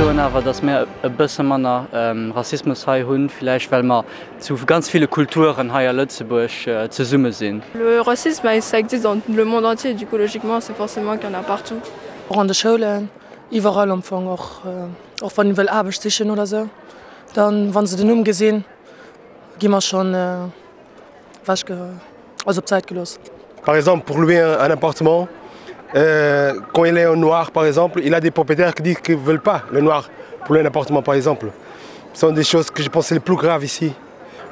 soen awer, datt mir e bësse manner Rassismus hei hunn, villäicht well mer zu ganz ville Kulturen hei a Lëtzebuerg zesumme sinn. Le racisme ça existe dans le monde entier, du coup logiquement c'est forcément qu'il y en a partout. Och an de Schoulen, iwwerall am Fong, och och wann een wëll Aarbecht sichen oder sou, dann wann se den Numm gesinn, gi mer schonn ewech, also op d'Säit gelooss. Par exemple pour louer un appartement quand il est en noir par exemple, il a des propriétaires qui disent qu'ils veulent pas le noir pour louer un appartement par exemple. Ce sont des choses que je pense c'est les plus graves ici.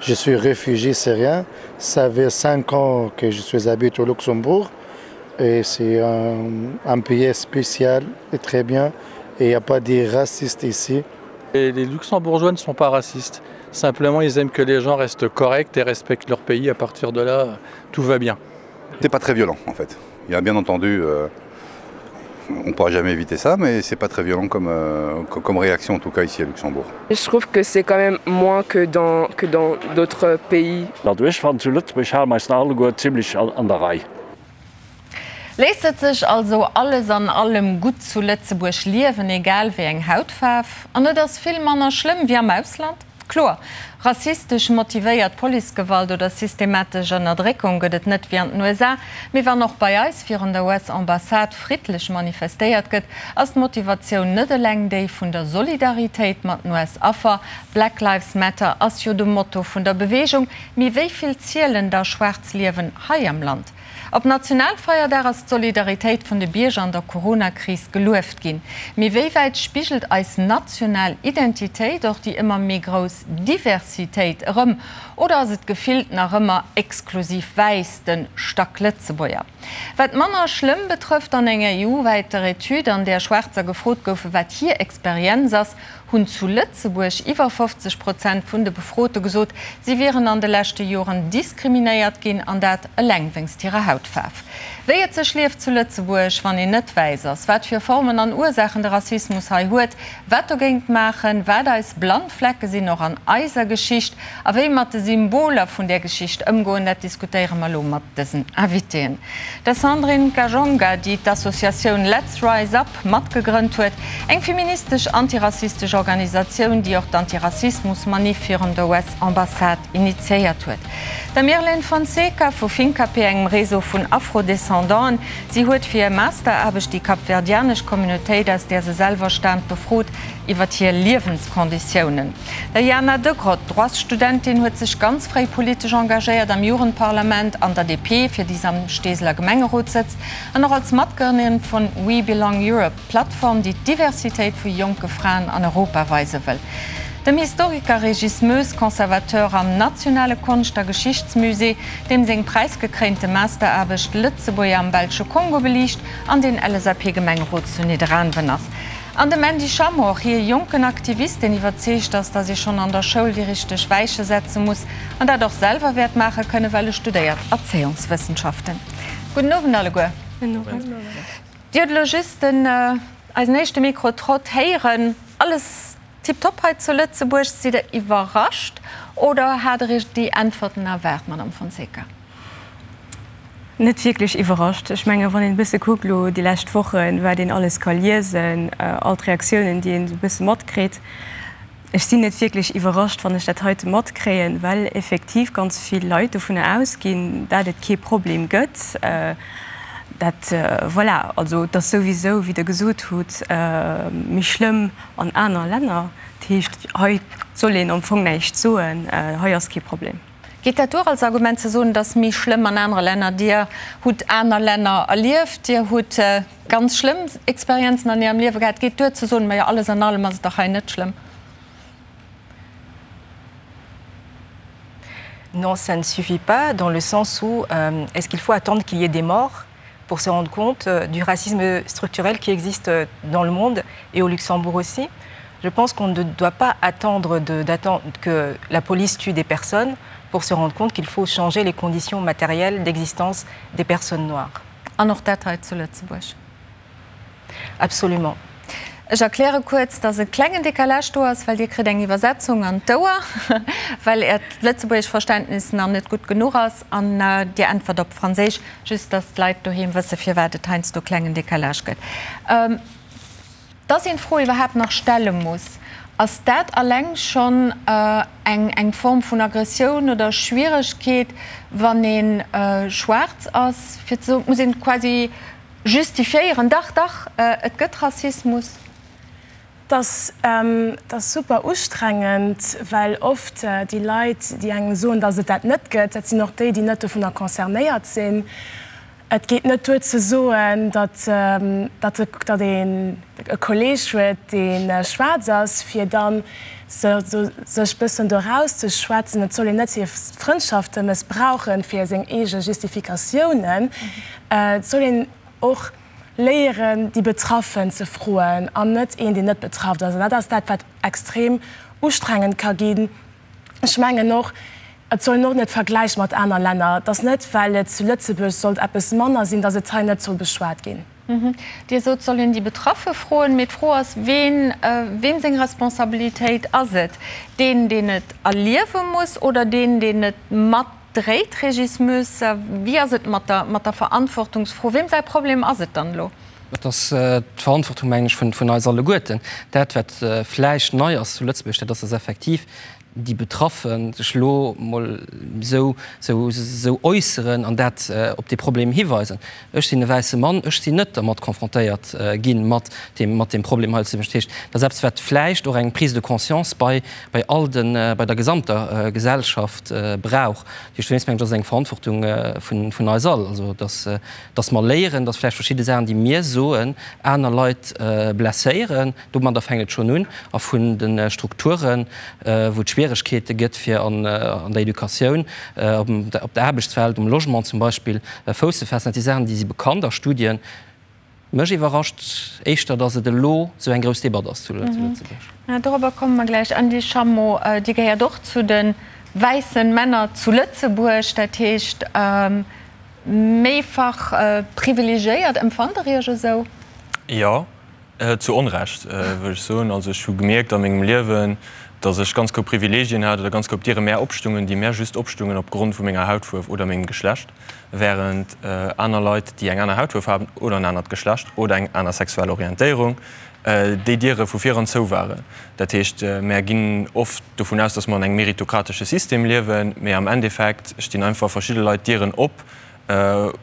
Je suis réfugié syrien, ça fait 5 ans que je suis habite au Luxembourg et c'est un, un pays spécial et très bien et il n'y a pas des racistes ici. Et les luxembourgeois ne sont pas racistes. Simplement ils aiment que les gens restent corrects et respectent leur pays. À partir de là, tout va bien. C'est pas très violent en fait. Il y a bien entendu euh, on pourra jamais éviter ça, mais c'est pas très violent comme, euh, comme réaction en tout cas ici à Luxembourg. Je trouve que c'est quand même moins que dans que dans d'autres pays. Also ech fannen zu Lëtzebuerg hale mer eis nach alleguer zimlech an der Rei. Léisst et sech also alles an allem gutt zu Lëtzebuerg liewen, egal wéi eng Hautfaarf? An et ass vill manner schlëmm wéi am Ausland? Kloer, rassistesch motivéiert Policegewalt oder systematesch Ënnerdréckung gëtt et net wéi an den USA. Mee wann och bei eis virun der US-Ambassade friddlech manifestéiert gëtt, ass d'Motivatioun net eleng déi vun der Solidaritéit mat den US-Affer. Black Lives Matter ass jo de Motto vun der Beweegung. Mee wéi vill zielen da schwaarz Liewen hei am Land? Op Nationalfeierdag ass d'Solidaritéit vun de Bierger an der Corona-Kris gelueft ginn. Mee wéi wäit spigelt eis national Identitéit och déi ëmmer méi grouss Diversitéit erëm? Oder ass et gefillt nach ëmmer exklusiv wäiss, de Stacklëtzebuerger? Wat manner schlëmm betrëfft, an enger EU-wäiter Etüd, an där Schwaarzer gefrot goufe wat hir Experienz ass, hunn zu Lëtzebuerg iwwer 50 Prozent vun de Befrote gesot, si wieren an de leschte Joren diskriminéiert ginn, an dat eleng wéinst hirer Hautfaarf. Wéi et sech lieft zu Lëtzebuerg, wann een net wäiss ass, wat fir Formen an Ursaachen de Rassismus hei huet, wat dogéint maachen, wat eis blann Flecke sinn, och an eiser Geschicht, a wéi mat de Symboler vun där Geschicht ëmgoen, dat diskutéiere mer elo mat dësen Invitéen. Der Sandrine Kajonga, déi d'Associatioun Let's Rise Up matgegrënnt huet, eng feministesch antirassistesch Organisatioun, déi och d'Antirassismus-Maniff virun der US-Ambassade initiéiert huet. Der Mirlene Fonseca vu Fincapé, engem Réseau vun Afro-Descendanten. Si huet fir hir Masteraarbecht déi kapverdianesch Communautéit, aus där se selwer staamt, befrot iwwer hir Liewenskonditiounen. Der Jana Degrott, Droitsstudentin, huet sech ganz fréi politesch engagéiert, am Jugendparlament, an der DP, fir déi se am Steeseler Gemengerot sëtzt, an och als Matgrënnerin vun We Belong Europe, d'Plattform, déi d'Diversitéit vu jonke Fraen an Europa weise wëll. Dem Historiker Régis Moes, Conservateur am Nationale Konscht a Geschichtsmusée, deem seng präisgekréinte Masteraarbecht Lëtzebuerger am belsche Kongo beliicht an deen LSAP-Gemengerot zu Nidderaanwen ass. An dem Andy Schamroch, hie jonken Aktivist, deen iwwerzeegt ass, datt ee schonn an der Schoul déi richteg Weiche setze muss an dat och selwer wäert maache kënnen, well e studéiert Erzéiungswëssenschaften. Gudden Owend alleguer. Dir hutt elo just den, eisen éischte Mikro-Trott héieren. Alles tiptop hei zu Lëtzebuerg. Sidd Der iwwerrascht oder hat Der Iech déi Äntwerten erwaart, Madame Fonseca? Net wierklech iwwerrascht. Ech menge wann een e bësse kuckt elo déi lescht Wochen, wat een alles ka liesen, all d'Reaktiounen, déi een esou e bësse matkritt, ech sinn net wierklech iwwerrascht, wann ech dat heite matkréien, well effektiv ganz vill Leit dovunner ausginn, dat et kee Problem gëtt. Dat, voilà, also et ass souwisou, wéi Der gesot hutt, méi schlëmm an aner Länner. Dat heescht, hei soll een am Fong näischt soen, hei ass kee Problem. Geet dat duer als Argument ze soen, et ass méi schlëmm an anere Länner? Dir hutt aner Länner erlieft, Dir hutt ganz schlëmm Experienzen an Ärem Liewe gehat. Geet duer ze soen, majo alles an allem ass et dach hei net schlëmm? Non, ça ne suffit pas dans le sens où euh, est-ce qu'il faut attendre qu'il y ait des morts pour se rendre compte euh, du racisme structurel qui existe euh, dans le monde et au Luxembourg aussi. Je pense qu'on ne doit pas attendre d'attendre que la police tue des personnes pour se rendre compte qu'il faut changer les conditions matérielles d'existence des personnes noires. An och dat hei zu Lëtzebuerg? Absolument. Ech erkläre kuerz, dass e klengen Décalage do ass, well Dir kritt eng Iwwersetzung an d'Ouer, well Äert lëtzebuergesch Verständnis nach net gutt genuch ass an Dir äntwert op Franséisch, just dass d'Leit doheem wësse firwat et heiansdo klengen Décalage gëtt. Dass een d'Fro iwwerhaapt nach stelle muss, ass dat alleng schonn eng eng Form vun Aggressioun oder Schwieregkeet, wann ee schwaarz ass, fir ze soen, et muss een quasi justifiéieren, dach, dach, et gëtt Rassismus? Et ass super ustrengend, well oft déi Leit, déi engem soen, datt et dat net gëtt, dat sinn och déi, déi net dovunner concernéiert sinn. Et geet net duer ze soen, datt datt een e Kolleeg huet, dee schwaarz ass, fir da sech bëssen do erauszeschwätzen. Et soll een net hir Frëndschafte mëssbrauchen fir seng eege Justifikatiounen. Et soll een och léieren, déi Betraffen ze froen an net een, deen net betraff ass. An dat ass dat, wat extrem ustrengend ka ginn. Ech mengen och, et soll een och net vergläiche mat aner Länner. Et ass net, well et zu Lëtzebuerg sollt eppes manner sinn, datt et hei net soll beschwat ginn. Dir sot, et soll een déi Betraffe froen. Mee d'Fro ass, ween, weem seng Responsabilitéit ass et? Deen, deen et erliewe muss oder deen, deen et mat Dréit, Régis Moes, wéi ass et mat der, mat der Verantwortungsfro? Weem säi Problem ass et dann elo? Et ass d'Verantwortung, mengen ech, vun, vun eis alleguerten. Dat, wat vläicht nei ass zu Lëtzebuerg, dat ass, dass effektiv déi Betraffe sech elo emol esou, esou, esou äusseren an dat op dee Problem hiweisen. Ech sinn e wäisse Mann, ech sinn net dermat confrontéiert ginn, mat deem, mat deem Problem hei zu Lëtzebuerg. Dat heescht, dat ass eppes, wat vläicht och eng Prise de conscience bei, bei all den, bei der gesamter Gesellschaft brauch. Dat heescht, dowéinst mengen ech, ass et eng Verantwortung vun, vun eis all, also dass, dass mer léieren, dass vläicht verschidde Saachen, déi mir soen, aner Leit blesséieren. Domadder fänkt et schonn un. A vun de Strukturen, wou et Schwieregkeete gëtt, fir an der Educatioun, op der Aarbechtswelt, um Logement zum Beispill, Fouss ze faassen. Dat si Saachen, déi si bekannt a Studien. Mech iwwerrascht éischter, datt et elo esou eng grouss Debatt ass zu Lëtzebuerg. Dorobber komme mer gläich. Andy Schammo, Dir gehéiert och zu de wäissen Männer zu Lëtzebuerg, dat heescht méifach privilegiéiert. Empfannt Der Iech esou? Jo, Zu Onrecht, wëll ech soen. Also ech hu gemierkt a mengem Liewen, datt ech ganz grouss Privilegien hat oder ganz grouss Diere mär opstungen, déi mär just opstungen opgrond vu menger Hautfuerf oder mengem Geschlecht, während aner Leit, déi eng aner Hautfuerf haben oder en anert Geschlecht oder eng aner sexuell Orientéierung, déi Diere vu viran zou waren. Dat heescht, mär ginn oft dovun aus, datt mer an engem meritokratesche System liewen, mee am Endeffekt stinn einfach verschidde Leit Dieren op,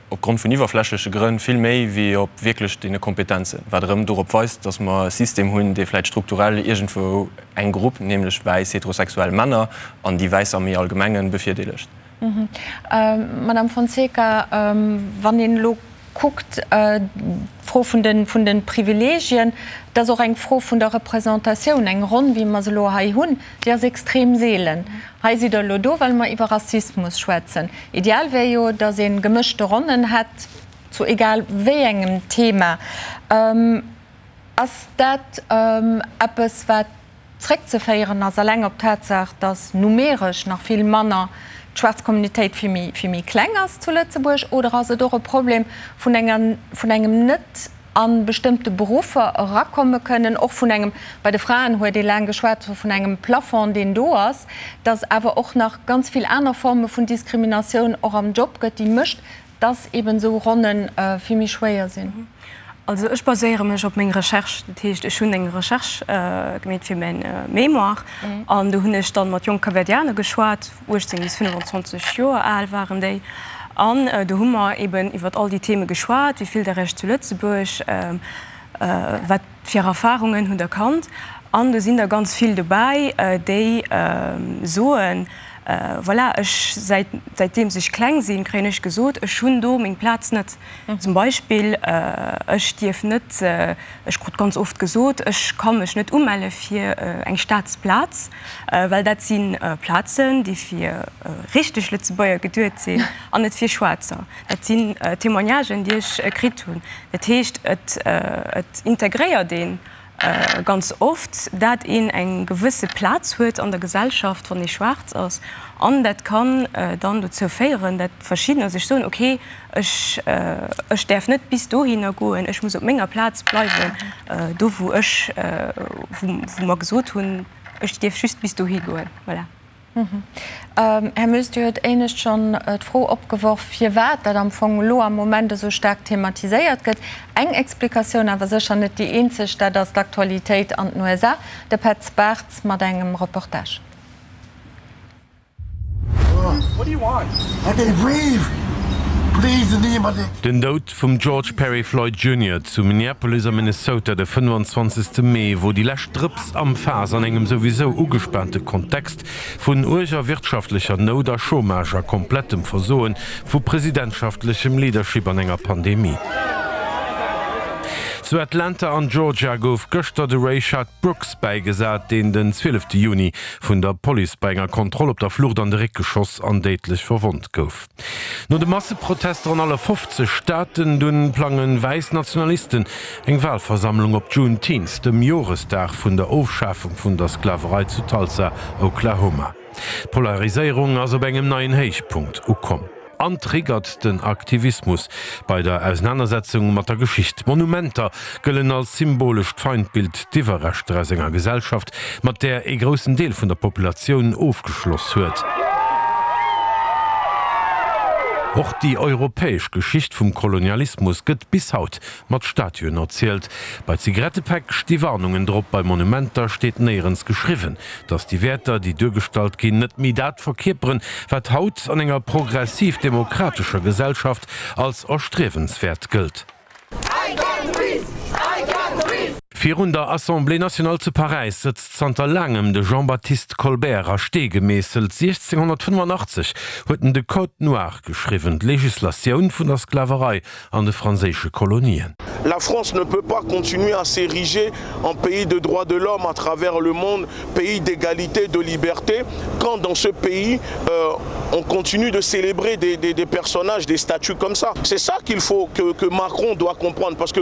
opgrond vun iwwerflächleche Grënn vill méi wéi op wierklech deene Kompetenzen, wat erëm dorop weist, datt mer e System hunn, dee vläicht strukturell iergendwou eng Grupp, nämlech wäiss heterosexuell Männer an déi wäiss am méi Allgemengen, bevirdeelegt. Madame Fonseca, wann een elo kuckt, d'Fro vun de vun de Privilegien, et ass och eng Fro vun der Représentatioun. Eng Ronn, wéi mer se elo hei hunn, déi ass extrem seelen. Hei sidd Der elo do, well mer iwwer Rassismus schwätzen. Ideal wär jo, datt ee gemëschte Ronnen hätt zu egal wéi engem Thema. Ass dat eppes, wat zréckzeféieren ass eleng op d'Tatsaach, datt numeresch nach vill manner d'schwaarz Communautéit vill méi, vill méi kleng ass zu Lëtzebuerg? Oder ass et och e Problem vun enger, vun engem net a bestëmmte Beruffer erakomme kënnen, och vun engem, bei de Fraen huet ee laang geschwat vun engem Plafond, deen do ass, datt awer och nach ganz vill aner Forme vun Diskriminatioun och am Job gëtt, déi mécht, dass eben esou Ronne vill méi schwéier sinn. Also ech baséiere mech op meng Recherche, dat heescht ech hunn eng Recherche gemeet fir mäin Mémoire an do hunn ech dann mat jonk Kapverdianer geschwat, 18 bis 25 Joer al waren déi, an do hu mer eben iwwert all déi Theme geschwat, wéi fillt der Iech zu Lëtzebuerg, wat fir Erfarungen hutt der kannt an do sinn der ganz vill dobäi déi soen, Voilà, ech, säit, säitdeems ech kleng sinn, kréien ech gesot, ech hunn do meng Plaz net. Zum Beispill, ech dierf net, ech krut ganz oft gesot, ech ka mech net umelle fir eng Staatsplaz, well dat si Plazen, déi fir richteg Lëtzebuerger geduet sinn an net fir Schwaarzer. Dat sinn Témoignagen, déi ech kritt hunn. Dat heescht, et, et integréiert een ganz oft, dat een eng gewësse Plaz huet an der Gesellschaft, wann ee schwaarz ass, an dat kann dann dozou féieren, dat verschiddener sech soen, okay, ech, ech däerf net bis dohinner goen, ech muss op menger Plaz bleiwen, do wou ech, wou mer gesot hunn, ech dierf just bis dohi goen. Voilà. Här Moes, Dir huet éinescht schonn d'Fro opgeworf, firwat dat am Fong elo am Moment esou staark thematiséiert gëtt. Eng Explikatioun, awer sécher net déi eenzeg, dat ass d'Aktualitéit an den USA. De Petz Bartz mat engem Reportage. Den Doud vum George Perry Floyd Junior zu Minneapolis am Minnesota de 25. Mee wor déi lescht Drëps am Faass an engem souwisou ugespaante Kontext vun uerger wirtschaftlecher Nout a Chômage a komplettem Versoe vu presidentschaftlechem Leadership an enger Pandemie. Zu Atlanta an Georgia gouf gëschter de Rayshard Brooks bäigesat, deen den 12 Juni vun der Police bei enger Kontroll op der Flucht an de Réck geschoss an déidlech verwonnt gouf. No de Masseprotester an alle 50 Staaten dunn plange wäiss Nationalisten eng Walversammlung op Juneteenth, dem Joresdag vun der Ofschafung vun der Sklaverei zu Tulsa, Oklahoma. D'Polariséierung ass op engem neien Héichpunkt ukomm an triggert den Aktivismus bei der Ausenanersetzung mat der Geschicht. Monumenter gëllen als symbolescht Feindbild, d'Iwwerreschter aus enger Gesellschaft, mat där ee groussen Deel vun der Populatioun ofgeschloss huet. Och déi europäesch Geschicht vum Kolonialismus gëtt bis haut mat Statuen erzielt. Bei Zigarettepäck sti Warnungen drop, bei Monumenter steet néierens geschriwwen, datt déi Wäerter, déi duergestallt ginn, net méi dat verkierperen, wat haut an enger progressiv-demokratescher Gesellschaft als erstriewenswäert gëllt. Virun der Assemblée nationale zu Paräis sëtzt zanter laangem de Jean-Baptiste Colbert a Stee gemeesselt. 1685 huet en de Code noir geschriwwen, d'Legislatioun vun der Sklaverei an de franséische Kolonien. La France ne peut pas continuer à s'ériger en pays de droits de l'homme à travers le monde, pays d'égalité, de liberté, quand dans ce pays euh, on continue de célébrer des, des, des personnages, des statues comme ça. C'est ça qu'il faut que, que Macron doit comprendre parce que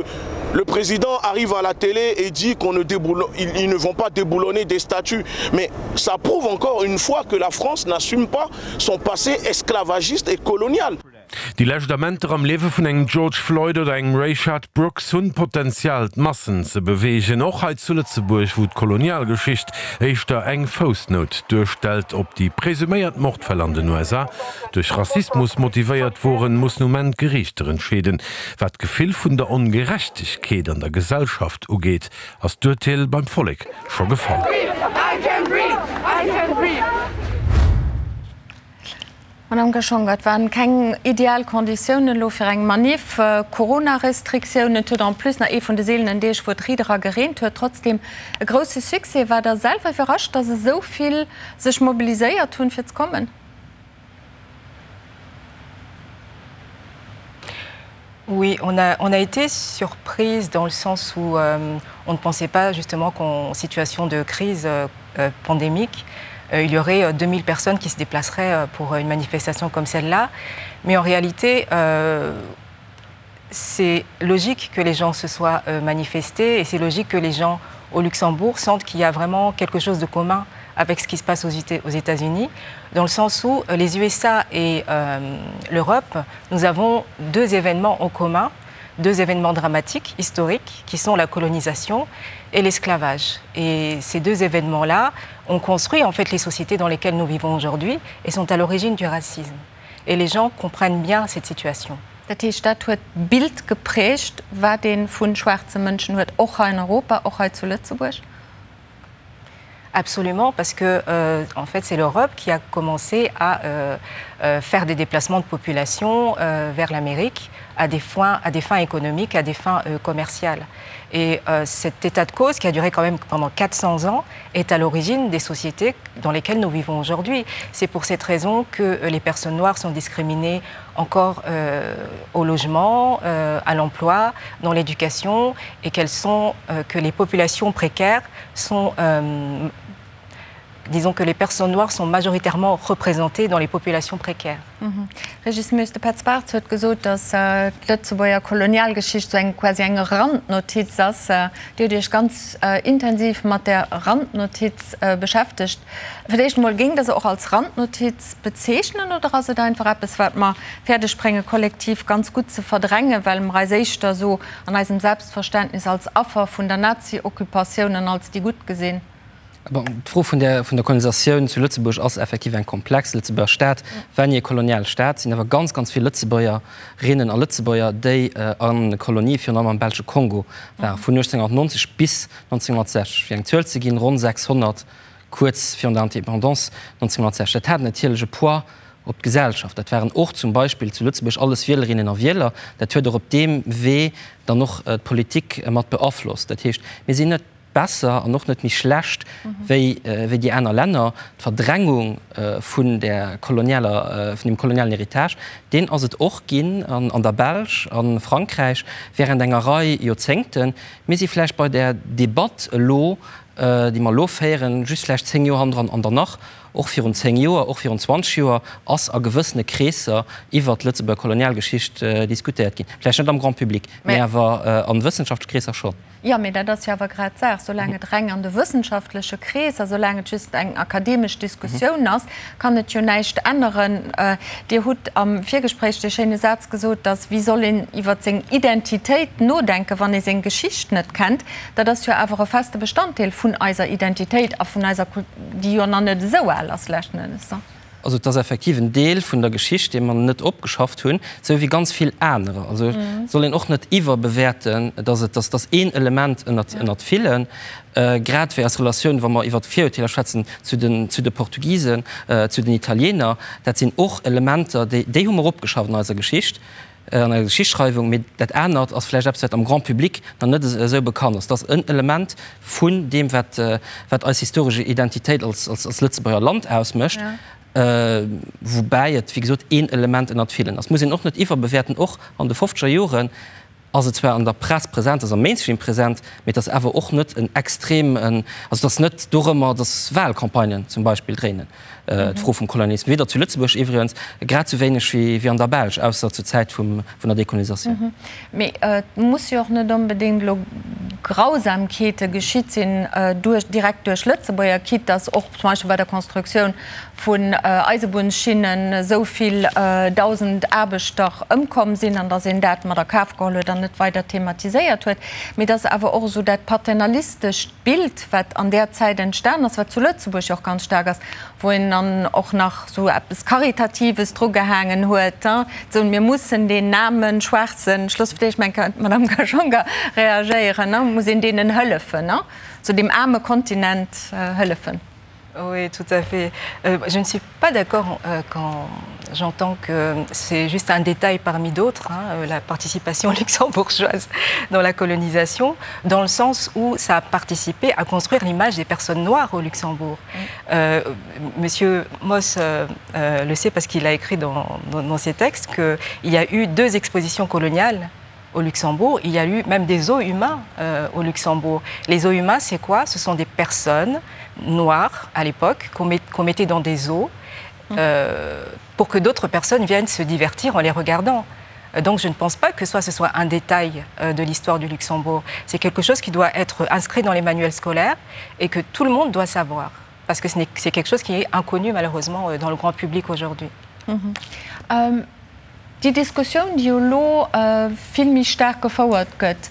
le président arrive à la télé et dit qu'on ne déboulon, ils, ils ne vont pas déboulonner des statues. Mais ça prouve encore une fois que la France n'assume pas son passé esclavagiste et colonial. Déi lescht Amenter am Liewe vun engem George Floyd oder engem Rayshard Brooks hunn d'Potenzial, d'Massen ze beweegen, och hei zu Lëtzebuerg, wou d'Kolonialgeschicht éischter eng Foussnout duerstellt. Ob déi presuméiert Mordfäll an den USA duerch Rassismus motivéiert woren, mussen um Enn d'Geriichter entscheeden. Wat d'Gefill vun der Ongerechtegkeet an der Gesellschaft ugeet, ass d'Urteel beim Vollek scho gefall. Madame Gashonga, et waren keng ideal Konditiounen elo fir eng Maniff, Corona-Restriktiounen, et huet en plus nach ee vun de seelenen Deeg wou et riit era gereent huet, trotzdem e grousse Succès. Waart Der selwer iwwerrascht, datt esou vill sech mobiliséiert hunn fir ze kommen? Oui, on a, on a été surprise dans le sens où euh, on ne pensait pas justement qu'en situation de crise euh, euh pandémique, euh, il y aurait 2000 euh, personnes qui se déplaceraient euh, pour une manifestation comme celle-là. Mais en réalité, euh, c'est logique que les gens se soient euh, manifestés et c'est logique que les gens au Luxembourg sentent qu'il y a vraiment quelque chose de commun avec ce qui se passe aux, aux États-Unis, dans le sens où euh, les USA et euh, l'Europe, nous avons deux événements en commun, deux événements dramatiques, historiques, qui sont la colonisation et l'esclavage. Et ces deux événements-là ont construit en fait les sociétés dans lesquelles nous vivons aujourd'hui et sont à l'origine du racisme. Et les gens comprennent bien cette situation. Dat heescht, dat huet d'Bild geprägt, wat ee vu schwaarze Mënschen huet, och hei in Europa, och hei zu Lëtzebuerg? Absolument, parce que euh, en fait c'est l'Europe qui a commencé à euh, euh, faire des déplacements de population euh, vers l'Amérique à des fins, à des fins économiques, à des fins euh, commerciales. Et euh, cet état de cause qui a duré quand même pendant 400 ans est à l'origine des sociétés dans lesquelles nous vivons aujourd'hui. C'est pour cette raison que euh, les personnes noires sont discriminées encore euh, au logement, euh, à l'emploi, dans l'éducation et qu'elles sont euh, que les populations précaires sont euh, disons que les personnes noires sont majoritairement représentées dans les populations précaires. Mhm. Régis Moes, de Petz Bartz huet gesot, datt d'Lëtzebuerger Kolonialgeschicht sou eng quasi eng Randnotiz ass. Dir hutt Iech ganz intensiv mat där Randnotiz beschäftegt. Fir d'éischt emol, géingt Der se och als Randnotiz bezeechnen oder ass et einfach eppes, wat mer fäerdeg brénge kollektiv ganz gutt ze verdrängen, well mer eis éischter esou an eisem Selbstverständnis als Affer vun der Nazi-Occupatioun an als déi Gutt gesinn? Bon, d'Fro vun der, vun der Kolonisatioun zu Lëtzebuerg ass effektiv eng komplex. Lëtzebuerger Staat war ni e koloniale Staat. Et sinn awer ganz, ganz vill Lëtzebuergerinnen a Lëtzebuerger, déi a Kolonie, virun allem am belsche Kongo waren, vun 1890 bis 1960. Fir eng Zuel ze ginn, ronn 600 kuerz virun der Indépendance 1960. Dat hat natierlech e Poids op d'Gesellschaft. Dat waren och zum Beispill zu Lëtzebuerg alles Wielerinnen a Wieler. Dat huet och op deem Wee dann och d'Politik mat beaflosst. Dat heescht, mir sinn net besser an och net méi schlecht wéi wéi déi aner Länner. D'Verdrängung vun där kolonialer, vun deem kolonialen Héritage, deen ass et och ginn an an der Belsch, a Frankräich während enger Rei Joerzéngten. Mir si vläicht bei där Debatt elo, déi mer elo féieren, just vläicht 10 Joer hannendran an der nach och virun 10 Joer, och virun 20 Joer ass a gewëssene Kreesser iwwert d'Lëtzebuerger Kolonialgeschicht diskutéiert ginn. Vläicht net am Grand public, mä awer a wëssenschaftleche Kreesser schonn. Jo, mee dat ass jo awer grad d'Saach. Soulaang et reng an de wëssenschaftleche Kreesser, soulaang et just eng akademesch Diskussioun ass, kann et jo näischt änneren. Dir hutt am Virgespréich dee schéine Saz gesot, dass, wéi soll een iwwer seng Identitéit nodenken, wann ee seng Geschicht net kennt? Dat ass jo awer e feste Bestanddeel vun eiser Identitéit a vun eiser Kultur, déi jo nach net esou al ass leschten Ennes. Also et ass effektiv en Deel vun der Geschicht, dee mer net opgeschafft hunn, esou wéi ganz vill anerer. Also et soll een och net iwwerbewäerten, dass et, dass dass een Element ënnert, ënnert villen, grad wéi eis Relatioun, wa mer iwwert Virurteeler schwätzen, zu den, zu de Portugisen, zu den Italiener, dat sinn och Elementer, déi, déi hu mer opgeschafft an eiser Geschicht. an eiser Geschichtsschreiwung, mee dat anert ass vläicht eppes, wat am Grand public nach net esou bekannt ass. Dat ass en Element vun deem, wat, wat eis historesch Identitéit als, als, als Lëtzebuerger Land ausmécht, woubäi et, wéi gesot, een Element ënnert villen ass. Muss een och net iwwerbewäerten. Och an de fofzeger Joren ass et zwar an der Press present, ass am Mainstream present, mee et ass awer och net en extrem, also et ass net dorëmmer, datt Wahlcampagnen zum Beispill dréinen. D'Fro vum Kolonialismus, weder zu Lëtzebuerg iwwregens, grad sou wéineg wéi an der Belsch, ausser zur Zäit vun der Dekolonisatioun. Mee et muss jo och net onbedéngt elo Grausamkeete geschitt sinn duerch, direkt duerch Lëtzebuerger, quitte dass och zum Beispill bei der Constructioun vun Eisebunnsschinnen esou vill 1.000 Aarbechter ëmkomm sinn an dass een dat mat a Kaf geholl huet an net weider thematiséiert huet. Mee dass awer och esou dat paternalistescht Bild, wat an där Zäit entstan ass, wat zu Lëtzebuerg jo och ganz staark ass, wou een dann och nach esou eppes Karitatives drugehaangen huet, esou mir mussen deen aarmen, schwaarzen, Schlussfleeg, ech mengen, d'Madame Gashonga reagéieren, muss een deenen hëllefen, esou deem aarme Kontinent hëllefen. Oui, tout à fait. Euh, je ne suis pas d'accord euh, quand j'entends que c'est juste un détail parmi d'autres, euh, la participation luxembourgeoise dans la colonisation, dans le sens où ça a participé à construire l'image des personnes noires au Luxembourg. Mm. Euh, Monsieur Moss euh, euh, le sait parce qu'il a écrit dans, dans, dans ses textes qu'il y a eu deux expositions coloniales au Luxembourg, il y a eu même des eaux humains euh, au Luxembourg. Les eaux humains, c'est quoi Ce sont des personnes noires à l'époque qu'on met, qu mettait dans des eaux euh, pour que d'autres personnes viennent se divertir en les regardant. Euh, donc je ne pense pas que soit ce soit un détail euh, de l'histoire du Luxembourg. C'est quelque chose qui doit être inscrit dans les manuels scolaires et que tout le monde doit savoir parce que c'est quelque chose qui est inconnu malheureusement euh, dans le grand public aujourd'hui. Mm -hmm. euh, Déi Diskussioun, déi jo elo vill méi staark gefouert gëtt,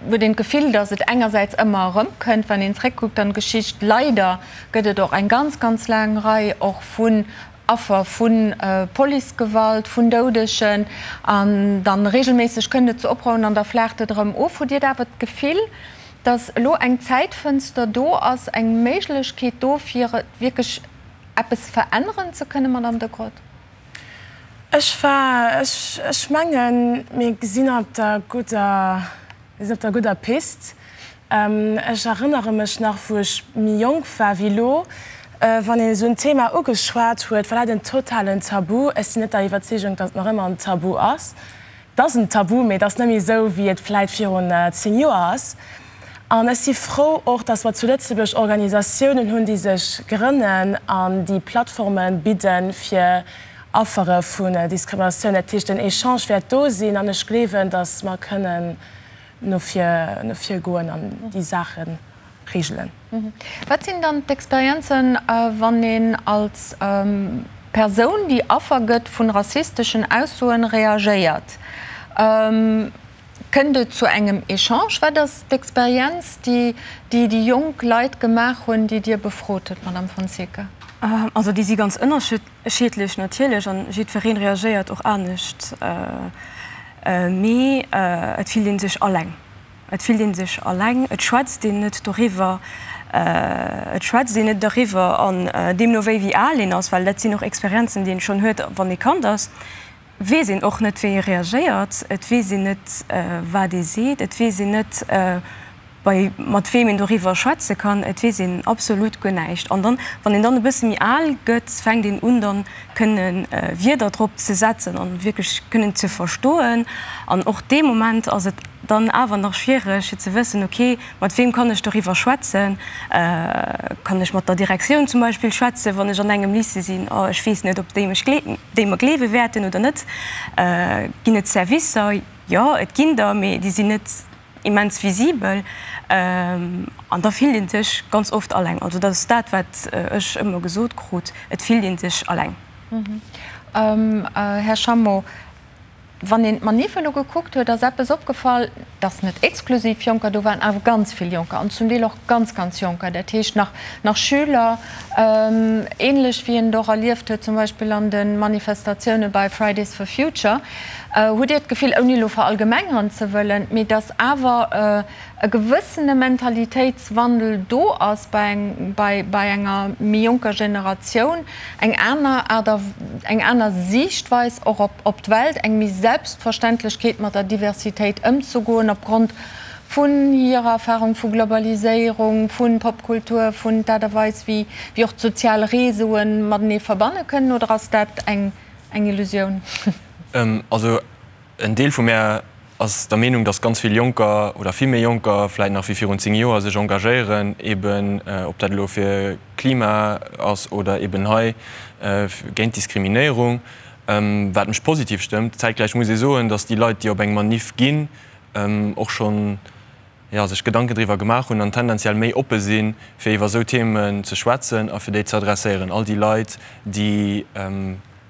huet een d'Gefill, datt et engersäits ëmmer erëmkënnt, wann een zréckkuckt an d'Geschicht. Leider gëtt et och eng ganz, ganz laang Rei och vun Affer vu Policegewalt, vun Doudegen. An dann regelméisseg kënnt et zu Oprouhen an da flaacht et erëm of. Hutt Dir awer d'Gefill, datt elo eng Zäitfënster do ass, eng Méiglechkeet do, fir wierklech eppes veränneren ze kënnen, Madame de Groot? Ech war, ech, ech mengen, mir sinn op der gudder, mir sinn op der gudder Pist. Ech erënnere mech nach, wou ech méi jonk war wéi elo, wann een esou en Thema ugeschwat huet, war dat en totalen Tabu. Ech sinn net der Iwwerzeegung, datt et nach ëmmer en Tabu ass. Et ass en Tabu, mee et ass net méi esou, wéi et vläit virun 10 Joer ass. An ech si frou och, dass mer zu Lëtzebuerg Organisatiounen hunn, déi sech grënnen an déi Plattforme bidden, fir Affere vun Diskriminatioun. Dat heescht, den Echange wäert do sinn an ech gleewen, dass mer kënnen no vir, no vir goen an déi Saache regelen. Wat sinn dann d'Experienzen, wann een als Persoun, déi Affer gëtt vun rassisteschen Aussoen, reagéiert? Kënnt et zu engem Echange? Wat ass d'Experienz, déi déi jonk Leit gemaach hunn, déi Dir befrot hutt, Madame Fonseca? Also déi si ganz ënnerschiddlech natierlech an jiddweree reagéiert och anescht. Mee et fillt ee sech alleng. Et fillt ee sech alleng, et schwätzt een net doriwwer, et schwätzt een net doriwwer an deemno wéi wéi al een ass, well dat sinn och Experienzen, déi een schonn huet, wann ee Kand ass, weess een och net, wéi ee reagéiert, et weess een net, wat ee seet, et weess een net, bei mat weem een doriwwer schwätze kann, et weess een absolut guer näischt. An dann, wann een dann e bësse méi al gëtt, fänkt een un dann kënne Wierder drop ze setzen an wierklech kënnen ze verstoen. An och dee Moment ass et dann awer nach schwiereg fir ze wëssen, ok, mat weem kann ech doriwwer schwätzen? Kann ech mat der Direktioun zum Beispill schwätzen, wann ech an engem Lycée sinn? Oh, ech weess net, ob déi mech déi mer gleewe wäerten oder net. Ginn et Servicer? Jo, et ginn der, mee déi sinn net immens visibel. An da fillt ee sech ganz oft alleng. Also dat ass dat, wat ech ëmmer gesot krut, et fillt ee sech alleng. Här Schammo, wann een d'Manif elo gekuckt huet, ass eppes opgefall, dass net exklusiv Jonker do waren, awer ganz vill Jonker an zum Deel och ganz, ganz Jonker, dat heescht nach, nach Schüler, ähnlech wéi een et och erlieft huet zum Beispill an de Manifestatioune bei Fridays for Future. Hutt Dir d'Gefill, ouni elo verallgemengeren ze wëllen, mee dass awer e gewëssene Mentalitéitswandel do ass bei bei enger méi jonker Generatioun, eng aner Aart a eng aner Siichtweis och op op d'Welt, eng méi Selbstverständlechkeet mat der Diversitéit ëmzegoen opgrond vun hirer Erfahrung vu Globaliséierung, vu Popkultur, vun d'Aart a Weis wéi wéi och d'sozial Réseaue matenee verbanne kënnen, oder ass dat eng eng Illusioun? Also en Deel vu mär ass der Meenung, datt ganz vill Jonker oder vill méi Jonker vläit nach wéi virun 10 Joer sech engagéieren, eben ob dat elo fir Klima ass oder eben hei géint Diskriminéierung, wat mech positiv stëmmt. Zäitgläich muss ee soen, datt déi Leit, déi op eng Maniff ginn, och schonn, jo, sech Gedanken driwwer gemaach hunn an tendenziell méi oppe sinn, fir iwwer esou Themen ze schwätzen a fir déi ze adresséieren. All déi Leit, déi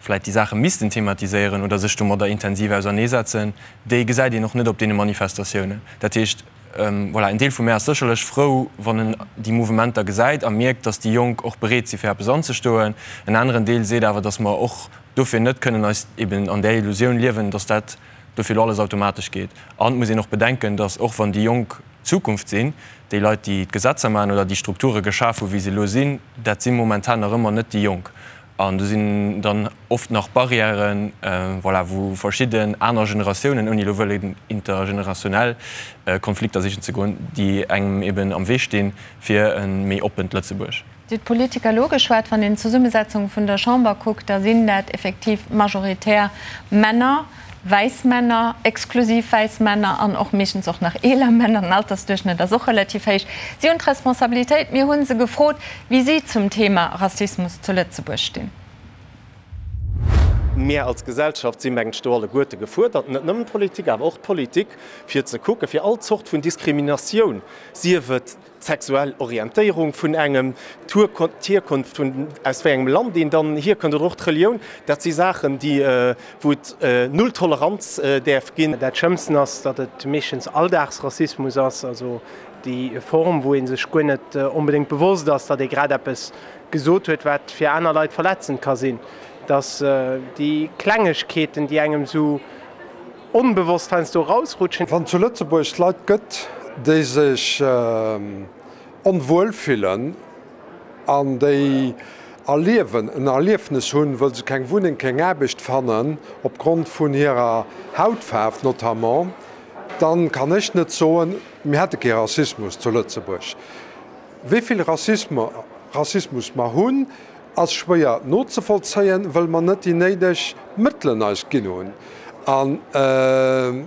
vläicht déi Saache missten thematiséieren oder sech domadder intensiv auserneesetzen, déi gesäit een och net op deene Manifestatiounen. Dat heescht, voilà, en Deel vu mär ass sécherlech frou, wann en déi Mouvementer gesäit a mierkt, datt déi Jonk och bereet si fir eppes anzestoen. En aneren Deel seet awer, datt mer och dofir net kënnen eis eben an där Illusioun liewen, datt dat dofir elo alles automatesch geet. An et muss een och bedenken, datt och wann déi Jonk d'Zukunft sinn, déi Leit, déi d'Gesetzer maachen oder déi Strukture geschaf hu wéi se elo sinn, dat si momentan nach ëmmer net déi Jonk. An do sinn dann oft nach Barrièren, voilà, wou verschidden aner Generatiounen, ouni elo wëllen intergenerationell Konflikter sichen ze goen, déi engem eben am Wee stinn fir e méi oppent Lëtzebuerg. Dir hutt d'Politiker elo ugeschwat. Wann een d'Zesummesetzung vun der Chamber kuckt, da sinn dat effektiv majoritär Männer, wäiss Männer, exklusiv wäiss Männer an och meeschtens och nach eeler Männer. Den Altersduerchschnëtt ass och relativ héich. Si hunn d'Responsabilitéit. Mir hu se gefrot, wéi si zum Thema Rassismus zu Lëtzebuerg stinn. Mir als Gesellschaft si mengen ech do alleguerte gefuerdert, net nëmmen d'Politik, awer och d'Politik, fir ze kucken, fir all Zort vun Diskriminatioun, sief et d'sexuell Orientéierung vun engem, d'Hierkonft vun, aus wéi engem Land een dann hierkënnt oder och d'Relioun, dat si Saachen, déi, wou et null Toleranz däerf ginn. Dat Schlëmmsten ass, datt et meeschtens Alldagsrassismus ass, also déi Form, wou ee sech guer net onbedéngt bewosst ass, datt ee grad eppes gesot huet, wat fir aner Leit verletzend ka sinn. Datt déi Klengegkeeten, déi engem esou Onbewosst heiansdo erausrutschen. Wann zu Lëtzebuerg Leit gëtt, déi sech onwuel fillen an déi erliewen, en Erliefnes hunn, wëll se keng Wunneng, keng Aarbecht fannen, opgrond vun hirer Hautfaarf notamment, dann kann ech net soen, mir hätte kee Rassismus zu Lëtzebuerg. Wéi vill Rassismus mer hunn, ass schwéier nozevollzéien, wëll mer net déi néideg Mëttelen eis ginn hunn. An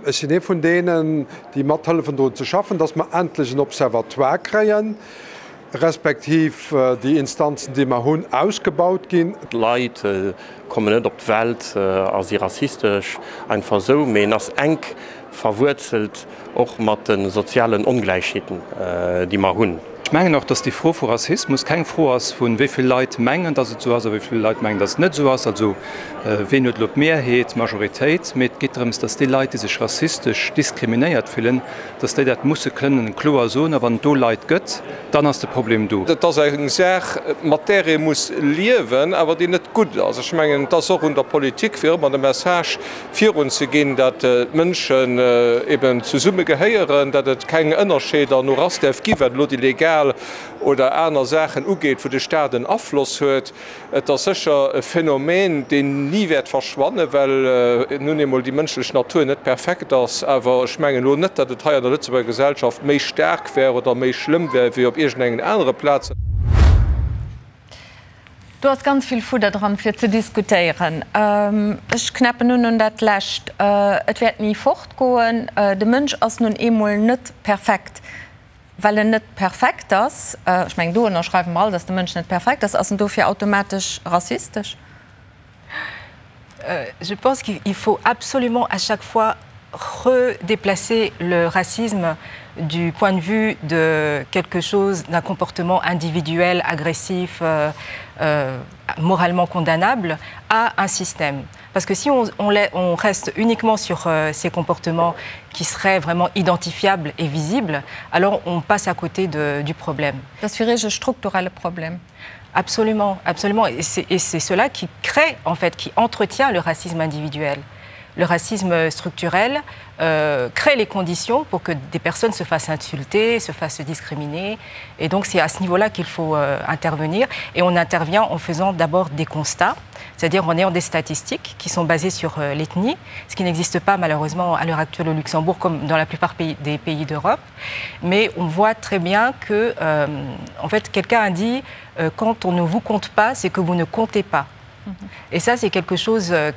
ech sinn ee vun deenen, déi mathëllefen drun ze schaffen, dass mer endlech en Observatoire kréien, respektiv déi Instanzen, déi mer hunn, ausgebaut ginn. D'Leit kommen net op d'Welt a si rassistesch, einfach esou, mee en ass enk verwuerzelt och mat de sozialen Ongläichheeten, déi mer hunn. Ech mengen och, dass déi Fro vu Rassismus keng Fro ass vun, wéi vill Leit mengen, dass et esou ass a wéi vill Leit mengen, dass et net esou ass, also ween huet elo d'Mehrheet, d'Majoritéit, mee et geet drëms, dass déi Leit, déi sech rassistesch diskriminéiert fillen, dass déi dat musse kënnen kloer soen. A wann et do Leit gëtt, dann ass de Problem do. Et ass eng Saach, mat där ee muss liewen, awer déi net gutt ass. Ech mengen, et ass och un der Politik, fir ëmmer de Message virun ze ginn, dat d'Mënschen eben zesumme gehéieren, dat et keng Ënnerscheeder no Rass däerf ginn, wat elo déi legal oder aner Saachen ugeet, wou de Staat en Afloss huet. Et ass sécher e Phänomen, deen ni wäert verschwannen, well nun eemol déi mënschlech Natur net perfekt ass. Awer ech mengen elo net, datt et hei an der Lëtzebuerger Gesellschaft méi staark wär oder méi schlëmm wär wéi op iergendengen anere Plazen. Do ass ganz vill Fudder dran, fir ze diskutéieren. Ech knäppen un un dat Lescht. Et wäert ni fortgoen. De Mënsch ass nun eemol net perfekt. Well en net perfekt ass, ech mengen, do ënnerschreiwe mer all, datt de Mënsch net perfekt ass, ass en dofir automatesch rassistesch? Je pense qu'il faut absolument à chaque fois redéplacer le racisme du point de vue de quelque chose d'un comportement individuel, agressif, euh, euh, moralement condamnable à un système. Parce que si on, on, on reste uniquement sur euh, ces comportements qui seraient vraiment identifiables et visibles, alors on passe à côté de, du problème. Das wäre un strukturelle Problem. Absolument, absolument. Et c'est cela qui crée, en fait, qui entretient le racisme individuel. Le racisme structurel euh, crée les conditions pour que des personnes se fassent insulter, se fassent discriminer. Et donc c'est à ce niveau-là qu'il faut euh, intervenir. Et on intervient en faisant d'abord des constats, c'est-à-dire en ayant des statistiques qui sont basées sur euh, l'ethnie, ce qui n'existe pas malheureusement à l'heure actuelle au Luxembourg comme dans la plupart pays, des pays d'Europe. Mais on voit très bien que euh, en fait, quelqu'un a dit euh, quand on ne vous compte pas, c'est que vous ne comptez pas. Et ça, c'est quelque chose euh,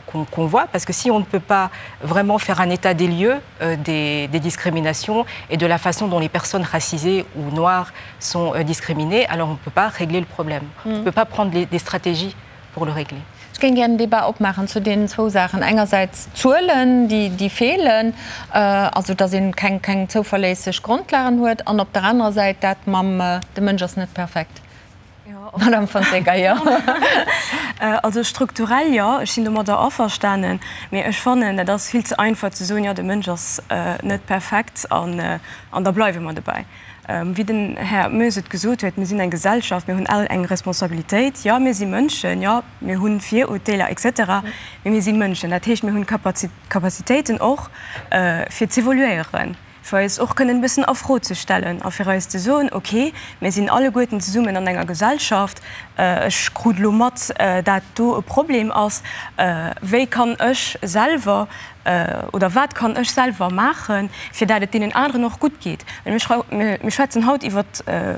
qu'on qu voit, parce que si on ne peut pas vraiment faire un état des lieux euh, des, des discriminations et de la façon dont les personnes racisées ou noires sont euh, discriminées, alors on ne peut pas régler le problème. Mm. On ne peut pas prendre les, des stratégies pour le régler. Ech géing gär en Débat opmaachen zu deenen zwou Saachen, engersäits d'Zuelen, déi feelen, also datt ee keng keng zouverléisseg Grondlagen huet, an op der anerer Säit dat mam de Mënsch ass net perfekt. Madame Fonseca, jo. Also strukturell, jo, ech sinn domadder averstanen, mee ech fannen, dat ass vill ze einfach ze soen, jo, de Mënsch ass net perfekt an da bleiwe mer dobäi. Wéi den Här Moes et gesot huet, mir sinn eng Gesellschaft, mir hunn all eng Responsabilitéit. Jo, mir si Mënschen, jo, mir hu Virurteeler et cetera, mee mir si Mënschen. Dat heescht, mir hunn Capacitéiten och, fir z'evoluéieren, fir eis och kënnen e bëssen a Fro ze stellen a fir eis ze soen, okay, mir sinn alleguerten zesummen an enger Gesellschaft, ech krut elo mat, dat do e Problem ass, wéi kann ech selwer Oder wat kann ech selwer maachen, fir dat et deenen aneren och gutt geet? Well mir schwätzen haut iwwer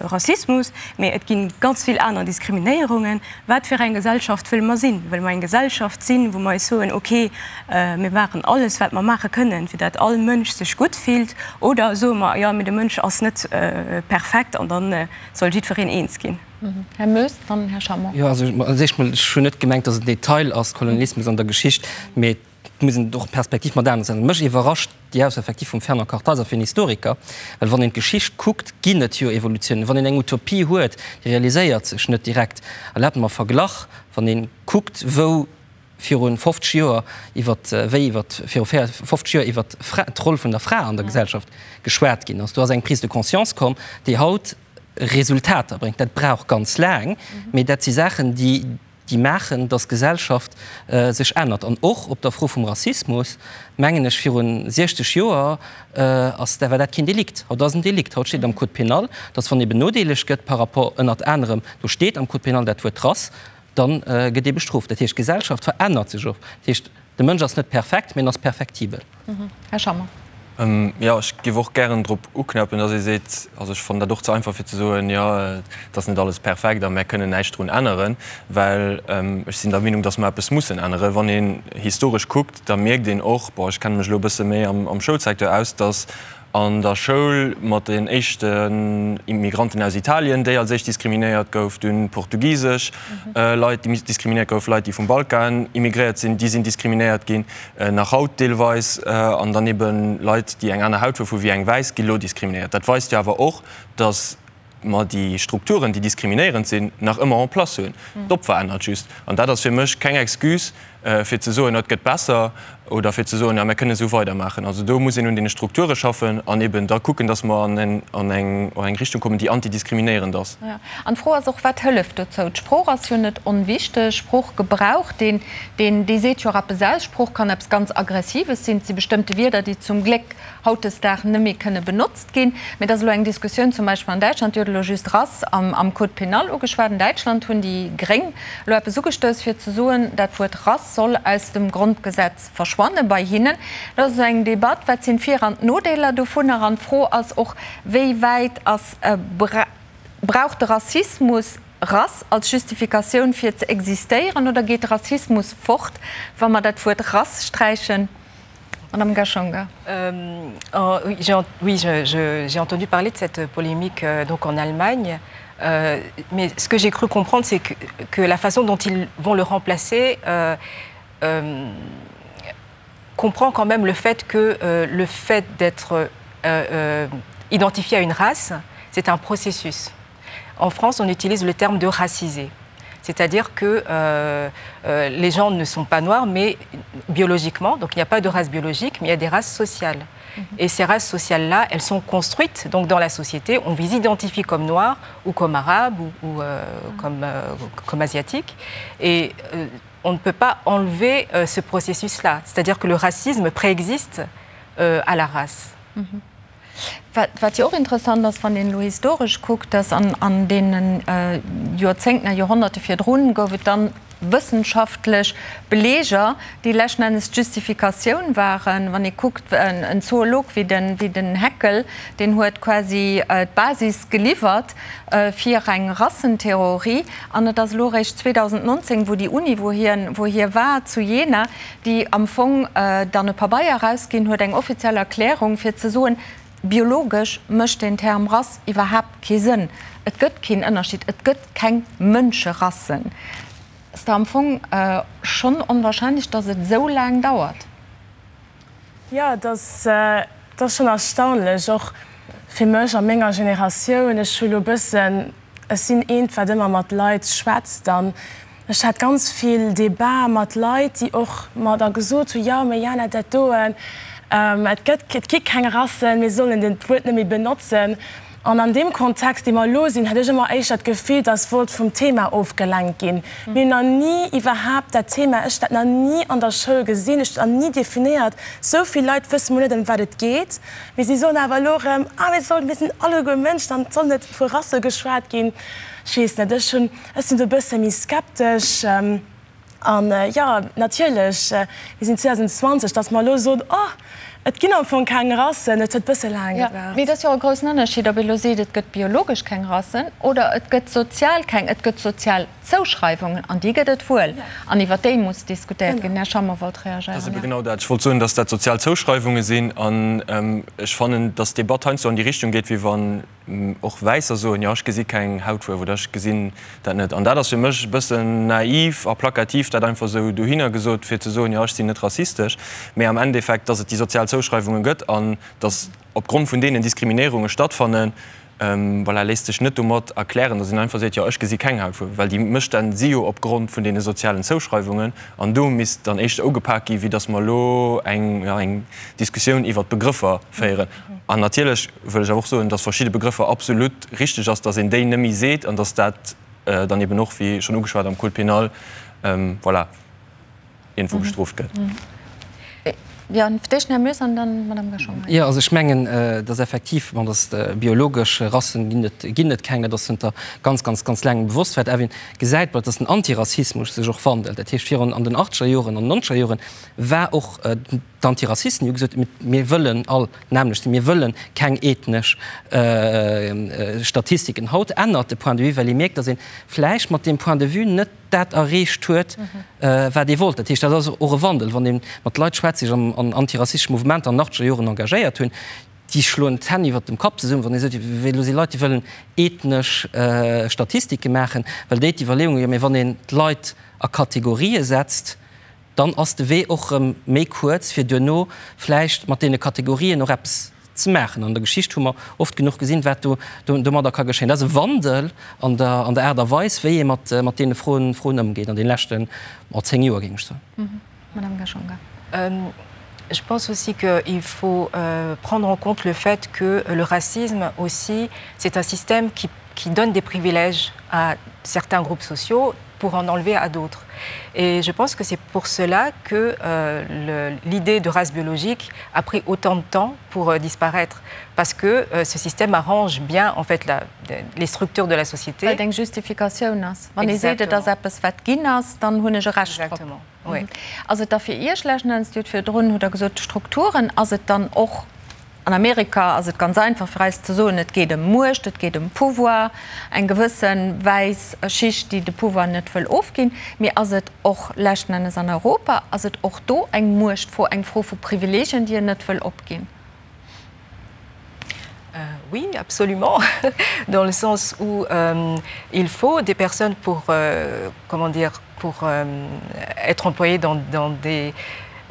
Rassismus, mee et gi ganz vill aner Diskriminéierungen. Wat fir eng Gesellschaft wëlle mer sinn? Wëlle mer eng Gesellschaft sinn, wou mer eis soen, okay, mir maachen alles, wat mer maache kënnen, fir dat all Mënsch sech gutt fillt? Oder soe mer, jo, mee de Mënsch ass net perfekt an da soll jiddwereen eens ginn? Här Moes, dann Här Schammer. Jo, also als éischt mol, ech hunn net gemengt, datt et en Detail ass, Kolonialismus an der Geschicht, mee Et muss een och d'Perspektiv mat anescht setzen. Mech iwwerrascht déi Ausso effektiv vum Fernand Kartheiser fir en Historiker, well wann een d'Geschicht kuckt, ginn et jo Evolutiounen. Wann een eng Utopie huet, déi realiséiert sech net direkt. Erlaabt mer e Verglach, Wann ee kuckt, wou viru 50 Joer iwwer, wéi iwwer viru 50 Joer iwwer d'Roll vun der Fra an der Gesellschaft geschwat ginn ass, do ass eng Prise de conscience komm, déi haut Resultater bréngt. Dat brauch ganz laang, mee dat si Saachen, déi, déi maachen, dass d'Gesellschaft sech ännert. An och op der Fro vum Rassismus, mengen ech, viru 60 Joer ass, war dat keen Delikt. Haut ass en Delikt. Haut steet am Code pénal, dass wann ee benodeelegt gëtt par rapport ënnert anerem, do steet am Code pénal dat Wuert Rass, da gëtt ee bestrooft. Dat heescht, d'Gesellschaft verännert sech och. Dat heescht, de Mënsch ass net perfekt, mee en ass perfektibel. Här Schammer. Jo, ech géif och gären drop uknäppen, dass ee seet, also ech fannen dat och ze einfach fir ze soen, jo, et ass net alles perfekt a mär kënnen näischt drun änneren, well ech sinn der Meenung, dass mer eppes mussen änneren. Wann een historesch kuckt, da mierkt een och, bon, ech kenne mech elo e bësse méi am Schoulsecteur aus, dass an der Schoul mat den éischten Immigranten aus Italien, déi als éischt diskriminéiert gouf, dunn portugisesch Leit, déi diskriminéiert goufen, Leit, déi vum Balkan immigréiert sinn, déi sinn diskriminéiert ginn, nach haut deelweis, an dann eben Leit, déi eng aner Hautfuerf hu wéi eng wäiss, gi lo diskriminéiert. Dat weist jo awer och, datt. mer déi Strukturen, déi diskriminéierend sinn, nach ëmmer en place hunn. D'Opfer ännert just. An dat ass fir mech keng Excuse, fir ze soen, et gëtt besser, oder fir ze soen, jo, mir kënnen esou weidermaachen. Also do muss een un deene Strukture schaffen an eben da kucken, dass mer an eng Richtung kommen, déi antidiskriminéierend ass. Jo, an d'Fro ass och, Wat hëlleft dozou? D'Sprooch ass jo net onwichteg. Sproochgebrauch, deen, dee seet jo och eppes aus. Sprooch kann eppes ganz Aggressives sinn. Et si bestëmmte Wierder, déi zum Gléck hautdesdaags net méi kënne benotzt ginn. Mee et ass elo eng Diskussioun zum Beispill an Däitschland, Dir hutt elo just Rass am Code pénal ugeschwat, an Däitschland hunn déi Gréng elo eppes ugestouss, fir ze soen, dat Wuert Rass soll aus dem Grondgesetz verschwanne bei hinnen. Dat ass eng Debatt, wat sinn d'Vir an d'Nodeeler dovunner? An d'Fro ass och, wéi wäit ass, brauch de Rassismus Rass als Justifikatioun fir ze existéieren oder geet de Rassismus fort, wa mer dat Wuert Rass sträichen? Madame Gashonga. Euh, oh, oui, oui j'ai entendu parler de cette polémique euh, donc en Allemagne. Euh, mais ce que j'ai cru comprendre, c'est que, que la façon dont ils vont le remplacer euh, euh, comprend quand même le fait que euh, le fait d'être euh, euh, identifié à une race, c'est un processus. En France, on utilise le terme de racisé c'est-à-dire que euh, euh, les gens ne sont pas noirs, mais biologiquement, donc il n'y a pas de race biologique, mais il y a des races sociales. Mm -hmm. Et ces races sociales-là, elles sont construites donc dans la société, on vous identifie comme noir ou comme arabe ou, ou euh, mm -hmm. comme, euh, comme asiatique. Et euh, on ne peut pas enlever euh, ce processus-là, c'est-à-dire que le racisme préexiste euh, à la race. Mm -hmm. Wat jo och interessant ass, wann een elo historesch kuckt, dass an deene Joerzéngten a Joerhonnerte virdrun gouf et dann wëssenschaftlech Beleeger, déi leschten Ennes d'Justifikatioun waren. Wann ee kuckt, en Zoolog wéi den Haeckel, deen huet quasi d'Basis geliwwert fir eng Rassentheorie. An et ass elo eréischt 2019, wou déi Uni, wou hie war, zu Jena, déi am Fong dann e Pabeier erausginn huet, eng offiziell Erklärung, fir ze soen, biologesch mécht deen Term Rass iwwerhaapt kee Sënn, et gëtt keen Ënnerscheed, et gëtt keng Mënscherassen. Ass da am Fong schonn onwahrscheinlech, datt et esou laang dauert. Jo, et ass schonn erstaunlech, och fir mech a menger Generatioun. Ech hu lo e bëssen Ech sinn eent, wat ëmmer mat Leit schwätzt an ech hat ganz vill Debatë mat Leit, déi och mer da gesot hunn, jo, mee Jana, dat doen, et gëtt, et gi keng Rassen, mir sollen den d'Wuert net méi benotzen. An an deem Kontext, dee mer elo sinn, hat ech ëmmer éischter d'Gefill, dass wollt vum Thema ofgelenkt ginn. Mir hunn nach ni iwwerhaapt dat Thema, ech dat nach ni an der Schoul gesinn, ech dat nach ni definéiert. Esou vill Leit wësse mol net, ëm wat et geet. Mee si soen awer elo erëm, ah mir sollen, mir sinn alleguer Mënschen an et soll net vu Rasse geschwat ginn. Ech weess net, ech hunn, ech sinn do e bësse méi skeptesch. An jo, natierlech, mir sinn 2020, datt mer elo soen, oh, et ginn am Fong keng Rassen, et huet e bësse laang gebraucht. Mee et ass jo och e groussen Ënnerscheed, ob ee elo seet, et gëtt biologesch keng Rassen oder et gëtt sozial keng, et gëtt sozial Zouschreiwungen, an déi gëtt et wuel, an iwwer déi muss diskutéiert ginn. Här Schammer wollt reagéieren. Dat ass ebe genau dat. Ech wollt soen, dass dat sozial Zouschreiwunge sinn. An ech fannen, dass d'Debatt heiansdo an déi Richtung geet, wéi wann och Wäisser soen, jo, ech gesi keng Hautfuerf oder ech gesinn dat net. An dat ass fir mech e bëssen naiv a plakativ, dat einfach esou dohinner gesot, fir ze soen, jo, ech sinn net rassistesch. Mä am Endeffekt, dass et déi sozial Zouschreiwunge gëtt an dass opgrond vun deenen Diskriminéierunge stattfannen, Voilà, léisst sech net domat erklären, datt een einfach seet, jo ech gesi keng Hautfuerf, well déi Mësstänn si jo opgrond vun deene sozialen Zouschreiwungen an do misst dann éischter ugepak gi wéi datt mer elo eng, jo, eng Diskussioun iwwert d'Begrëffer féieren. An natierlech wëll ech awer och soen, datt verschidde Begrëffer absolut richteg ass, datt een déi net méi seet an datt dat dann eben och, wéi schonn ugeschwat, am Code pénal, voilà. iergendwou bestrooft gëtt. Jo, fir d'éischt den Här Moes an dann d'Madame Gachon. Jo, also ech mengen, dass effektiv, bon, dass biologesch Rassen ginn et, ginn et keng, dat ass zënter ganz, ganz, ganz laangem bewosst. Wat awer een gesäit, bon, dass den Antirassismus sech och wandelt. Dat heescht, virun an den achtzeger Joren, an den nonzeger Joren war och d'Antirassisten, déi hu gesot, mir wëllen all d'nämmlecht sinn, mir wëlle keng ethnesch Statistiken. Haut ännert de Point de vue, well ee mierkt, dass ee vläicht mat deem Point de vue net dat erreecht huet, wat ee wollt. Dat heescht, dat ass och e Wandel. Wann ee mat Leit schwätzt, déi sech an antirassistesche Mouvementer an den achtzeger Joren engagéiert hunn, déi schloen d'Hänn iwwert dem Kapp zesummen, wann ee seet, wéi elo si Leit, déi wëllen ethnesch Statistike maachen, well déi d'Iwwerleeung hunn, jo, mee wann een d'Leit a Kategorië setzt, dann ass de Wee och erëm méi kuerz, fir duerno vläicht mat deene Kategorien och eppes. ze maachen. An der Geschicht hu mer oft genuch gesinn, wat do domadder ka geschéien. Dat ass e Wandel an der an der Aart a Weis, wéi ee mat mat deene Froen Froen ëmgeet an deene leschten, oh, 10 Joer, géing ech soen. Madame Gashonga. Je pense aussi qu'il faut euh, prendre en compte le fait que le racisme aussi, c'est un système qui, qui donne des privilèges à certains groupes sociaux pour en enlever à d'autres. Et je pense que c'est pour cela que euh, l'idée de race biologique a pris autant de temps pour euh, disparaître parce que euh, ce système arrange bien en fait la, les structures de la société. Well et eng Justifikatioun ass. Wann ee seet, et ass eppes wat ginn ass, dann hunn ech e Recht drop. Exactement, oui. Ass et da fir Iech leschten Enns, Dir hutt virdrun hutt Der gesot, d'Strukturen, ass et dann och, an Amerika ass et ganz einfach fir eis ze soen, et geet ëm Muecht, et geet ëm Pouvoir, eng gewësse wäiss Schicht, déi de Pouvoir net wëll ofginn, mee ass et och leschten Ennes an Europa, ass et och do eng Muechtfro, eng Fro vu Privilegien, déi een net wëll opginn? Euh, oui, absolument, dans le sens où euh, il faut des personnes pour, euh, comment dire, pour euh, être employées dans, dans des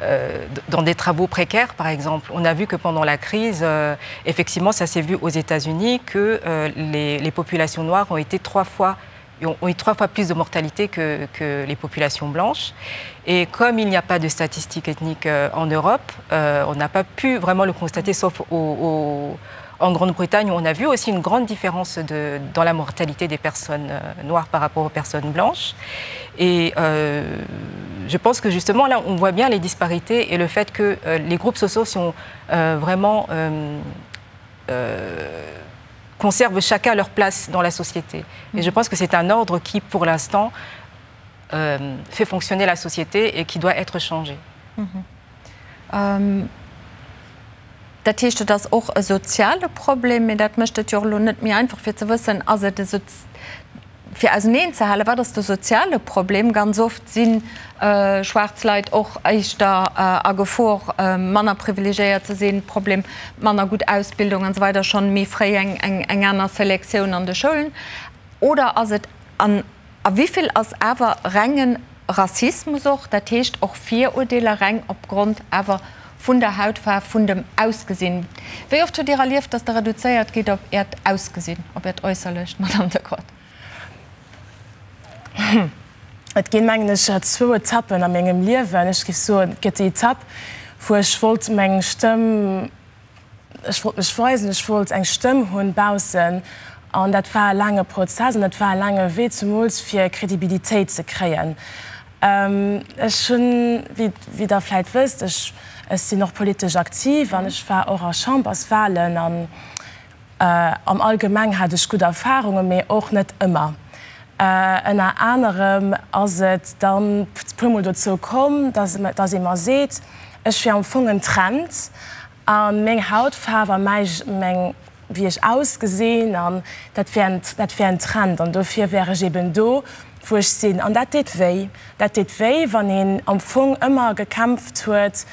euh, dans des travaux précaires, par exemple. On a vu que pendant la crise, euh, effectivement, ça s'est vu aux États-Unis que euh, les, les populations noires ont été trois fois ont, ont eu trois fois plus de mortalité que, que les populations blanches. Et comme il n'y a pas de statistiques ethniques euh, en Europe, euh, on n'a pas pu vraiment le constater, sauf au, au, en Grande-Bretagne, où on a vu aussi une grande différence de, dans la mortalité des personnes euh, noires par rapport aux personnes blanches. Et euh, je pense que justement là, on voit bien les disparités et le fait que euh, les groupes sociaux sont euh, vraiment euh, euh, conservent chacun leur place dans la société. Et je pense que c'est un ordre qui, pour l'instant, euh, fait fonctionner la société et qui doit être changé. Mhm. Ähm, dat heescht, et ass och e soziale Problem, mee dat mécht et jo och elo net méi einfach fir ze wëssen, ass et e fir auseneen ze halen, wat ass de soziale Problem? Ganz oft si schwaarz Leit och éischter a Gefor, manner privilegiéiert ze sinn, Problem manner gutt Ausbildung an esou weider, schonn méi fréi eng aner Selektioun an de Schoulen. Oder ass et, an a wéi vill ass awer renge Rassismus och, dat heescht och Virurdeeler reng opgrond awer vun der Hautfaarf, vun dem Ausgesinn? Wéi oft hutt Dir erlieft, datt Der reduzéiert gitt op Äert Ausgesinn, op Äert Äusserlecht, Madamm Decrotte? Et ginn, mengen ech, zwou Etappen a mengem Liewen. Ech géif soen, et gëtt déi Etapp, wou ech wollt meng Stëmm, ech wollt mech weisen, ech wollt eng Stëmm hunn baussen. An dat war e laange Prozess an dat war e laange Wee, zemools fir Kredibilitéit ze kréien. Ech hunn, wéi Der vläit wësst, ech sinn och politesch aktiv an ech war och a Chamberswahlen an am Allgemeng hat ech gutt Erfahrungen, mee och net ëmmer. Ënner anerem ass et dann puermol dozou komm, dass ee mer seet, ech wier am Fong en Trend a meng Hautfaarf a mäi, meng, wéi ech ausgesinn an dat wär en, dat wär en Trend an dofir wär ech eben do, wou ech sinn. An dat deet wéi. Dat deet wéi, wann een am Fong ëmmer gekämpft huet,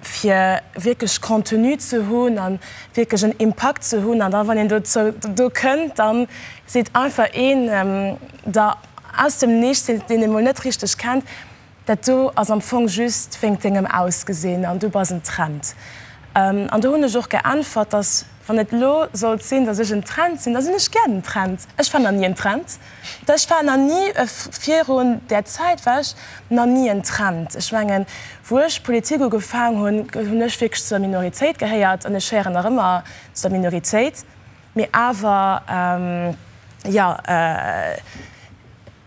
fir wierklech Contenu ze hunn a wierklech en Impakt ze hunn. An da wann een dozou, do kënnt, da seet einfach een der aus dem Nichts, deen ee mol net richteg kennt, Dat do ass am Fong just wéingt dengem Ausgesinn an du bass en Trend. An do hunn ech och geäntwert, dass wann et elo sollt sinn, dass ech en Trend sinn, da sinn ech gär den Trend. Ech war nach ni en Trend. Ech war nach ni, virun där Zäit war ech nach ni en Trend. Ech mengen, wou ech Politik ugefaang hunn, hunn ech wierklech zur Minoritéit gehéiert an ech héieren nach ëmmer zu der Minoritéit. Mee awer, jo,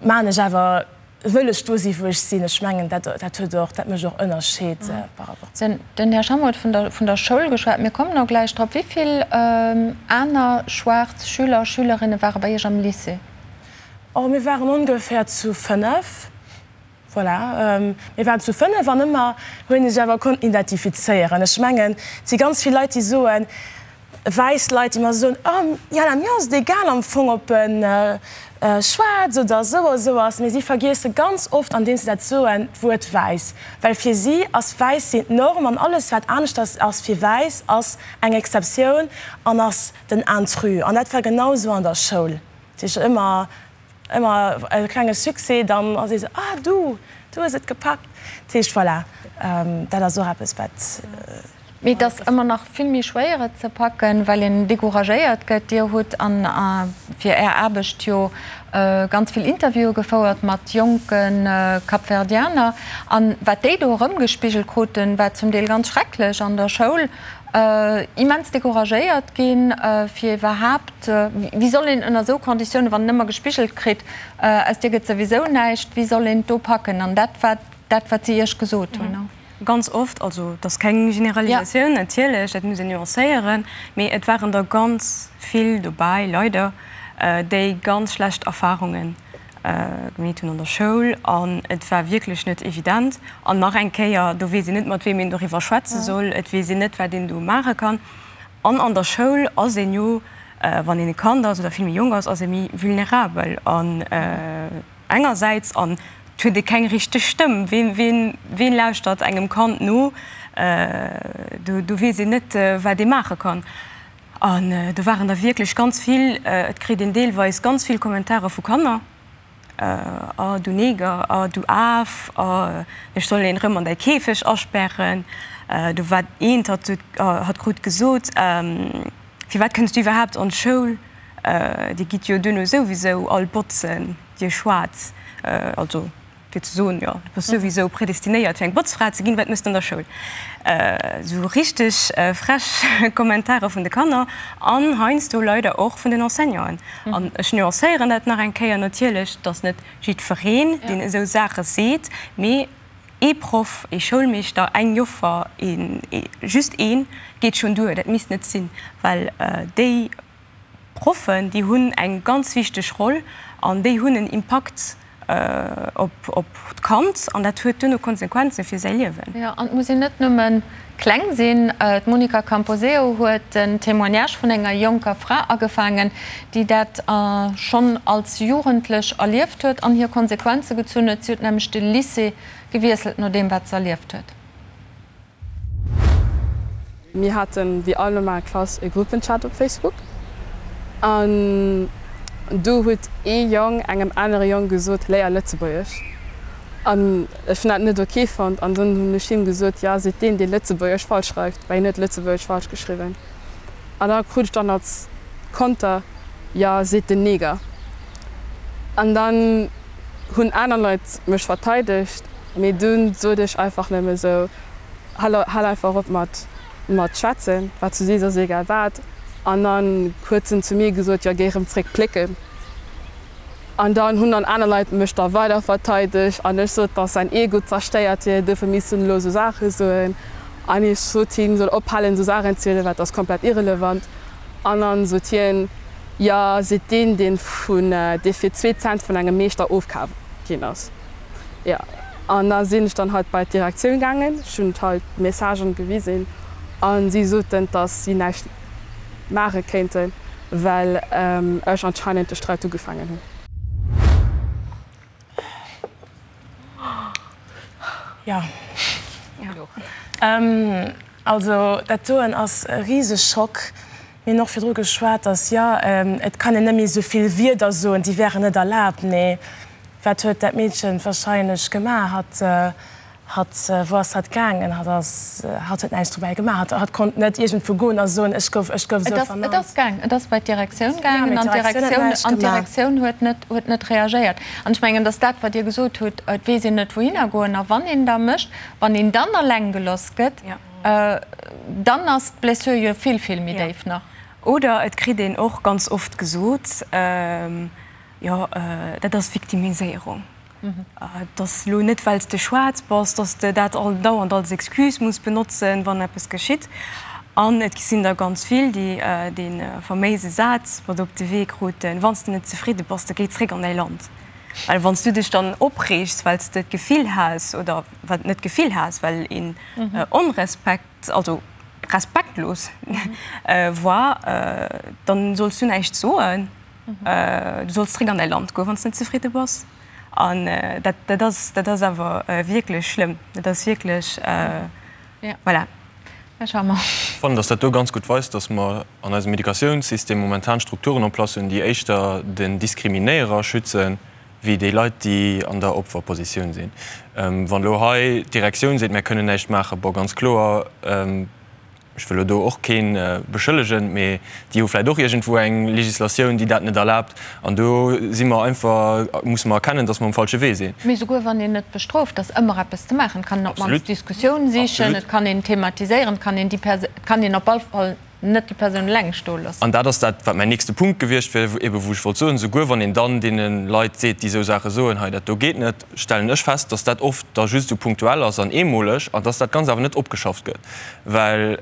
maan ech awer Wëll ech do si wou ech sinn. Ech mengen dat dat huet och, dat mécht och Ënnerscheed par rapport zu. Den Här Schammer huet vun der vun der Schoul geschwat. Mir kommen och gläich drop. Wéi vill aner schwaarz Schüler, Schülerinne ware bei Iech am Lycée? Oh, mir waren ongeféier zu 5. Voilà, mir waren zu 5 an ëmmer hunn ech awer konnten identifizéieren. Ech mengen, et si ganz vill Leit, déi soen, wäiss Leit, déi mer soen, oh Jana, mir ass et egal am Fong, ob en schwaarz oder esou a esou ass, mee si vergiesse ganz oft, andeems se dat soen, d'Wuert wäiss, well fir si ass wäiss sinn d'Norm an alles wat aneschters ass fir wäiss ass eng Exceptioun an ass den Intrus. An dat war genau esou an der Schoul, dat heescht ëmmer ëmmer e klenge Succès, dann ass ee sou, ah du, du hues et gepackt. Dat heescht, voilà, dat ass och eppes wat. Mee et ass ëmmer nach vill méi schwéier et ze packen, well een decouragéiert gëtt. Dir hutt an fir Är Aarbecht jo ganz vill Interviewe gefouert mat jonke Kapverdianer. An wat déi do erëmgespigelt kruten, war zum Deel ganz schrecklech an der Schoul. Immens decouragéiert ginn, fir iwwerhaapt, wéi soll een ënner esou Konditiounen, wann een ëmmer gespigelt kritt, aus dir gëtt souwisou näischt, wéi soll een et do packen? An dat war dat, wat si Iech gesot hunn. Ganz oft, also et ass keng Generalisatioun natierlech, dat muss een nuancéieren, mee et waren der ganz vill dobäi, leider, déi ganz schlecht Erfarunge gemeet hunn an der Schoul an et war wierklech net evident. An nach eng Kéier, do weess een net, mat weem een doriwwer schwätze soll, et weess een net, wat een do maache kann. An an der Schoul ass een jo, wann een e Kand ass oder vill méi jonk ass, ass ee méi vulnerabel an engersäits an et huet ee keng richteg Stëmm. Ween, ween, ween lauschtert engem Kand no? Do, do weess een net, wat ee maache kann. An do waren der wierklech ganz vill. Et kritt een deelweis ganz vill Kommentare vu Kanner, Oh du Neger, oh du Af, oh ech soll een erëm an däi Käfeg asperren. Do war eent, hatt huet, hatt krut gesot, Firwat kënns du iwwerhaapt an d'Schoul? Dir gitt jo duerno souwisou all botzen, dir Schwaarz. Also fir ze soen, jo, du bass souwisou predestinéiert fir eng Botzfra ze ginn, wat méchs de an der Schoul? Esou richteg frech Kommentare vun de Kanner an heiansdo leider och vun den Enseignanten. An ech nuancéieren dat nach eng Kéier natierlech, et ass net jiddwereen, deen esou Saache seet, mee ee Proff, ee Schoulmeeschter, eng Joffer, een, just een, geet schonn duer. Dat misst net sinn, well déi Proffen, déi hunn eng ganz wichteg Roll an déi hunn en Impakt op d'Kand an dat huet duerno Konsequenze fir säi Liewen. Jo, an et muss een net nëmme kleng sinn. D'Monica Camposeo huet den Témoignage vun enger jonker Fra agefaangen, déi dat schonn als Jugendlech erlieft huet an hir Konsequenze gezunn huet. Si huet nämlech de Lycée gewiesselt no deem, wat se erlieft huet. Mir haten wéi all normal Klass e Gruppenchat op Facebook an do huet ee Jong engem anere Jong gesot, léier Lëtzebuergesch. An ech hunn dat net ok fonnt an dunn hunn ech him gesot, jo seet deen, dee Lëtzebuergesch falsch schreift, well hien huet Lëtzebuergesch falsch geschriwwen. An da krut ech dann als Konter, jo seet den Neger. An dann hunn aner Leit mech verteidegt, mee dunn sot ech einfach nëmme sou, Hal hal einfach op mat mat schwätzen, wat s du sees ass egal wat. An dann huet en zu mir gesot, jo géi rëm zréck plécken. An dann hunn dann aner Leit mech da weider verteidegt an ech sot, dass säin Ego zerstéiert wier, duerfir misst en elo esou Saache soen. An ech sot him, soll ophalen esou Saachen ze soen, well dat ass komplett irrelevant. An dann sot hien, jo seet deen, deen vun dee fir zwee Cent vun engem Meeschter ofkaf ginn ass. Jo, an da sinn ech dann halt bei d'Direktioun gaangen, ech hunn halt d'Messagen gewisen a si soten, dass si näischt maache kéinten, well ech anscheinend de Sträit ugefaangen hunn. Jo, also dat doen ass e Riseschock. Mir hunn och virdru geschwat, dass, jo, et kann een net méi esou vill Wierder soen, déi wären net erlaabt. Mee wat huet dat Meedchen wahrscheinlech gemaach? Hatt, hatt, wou ass hatt gaangen? Hatt ass, hatt huet näischt dobäi gemaach. Hatt, hatt konnt net iergendwou goen a soen, ech gouf, ech gouf esou vernannt. Et ass gaang, et ass bei d'Direktioun gaangen an d'Direktioun, an d'Direktioun huet net, huet net reagéiert. An ech mengen, dass dat, wat Dir gesot hutt, et weess een net, wouhinner goen. A wann een da mécht, wann een dann eleng geloss gëtt, Dann ass d'Blessure jo vill, vill méi déif nach. Oder et kritt een och ganz oft gesot, jo, dat ass Victimiséierung. Et ass elo net, well s de schwaarz bass, datt s de dat all dauernd als Excuse muss benotzen, wann eppes geschitt. An et sinn der ganz vill, déi dee faméise Saz mat op de Wee kruten, Wann s de net zefridde bass, da géi zréck an däi Land. Well wann s du dech dann opreegs, well s de d'Gefill has, oder wat net d'Gefill has, well een onrespekt, also respektlos war, dann solls du näischt soen. Du solls zréck an däi Land goen, wann s de net zefridde bass. An dat, dat ass, dat ass awer wierklech schlëmm. Dat ass wierklech, voilà. Här Schammer. Ech fannen, dass dat do ganz gutt weist, dass mer an eisem Educatiounssystem momentan Strukturen en place hunn, déi éischter den Diskriminéierer schützen, wéi déi Leit, déi an der Opferpositioun sinn. Wann elo hei d'Direktioun seet, mär kënnen näischt maachen, bon, ganz kloer. Ech wëll elo do och kee beschëllegen, mee déi hu vläicht och iergendwou eng Législatioun, déi dat net erlaabt. An do si mer einfach, musse mer erkennen, dass mer um falsche Wee sinn. Mee souguer wann een net bestrooft, ass ëmmer eppes ze maachen. Et kann een op d'mannst d'Diskussioun sichen, et kann een thematiséieren, et kann een déi Perso-, et kann een op all Fall net déi Persoun eleng stoe loossen. An dat ass dat, wat mäin nächste Punkt gewiescht wier, ebe wou ech wollt soen, Souguer wann een dann deene Leit seet, déi esou Saache soen, hei dat do geet net, stellen ech fest, dass dat oft da just esou punktuell ass an eemoleg an dass dat Ganzt awer net opgeschafft gëtt. Well,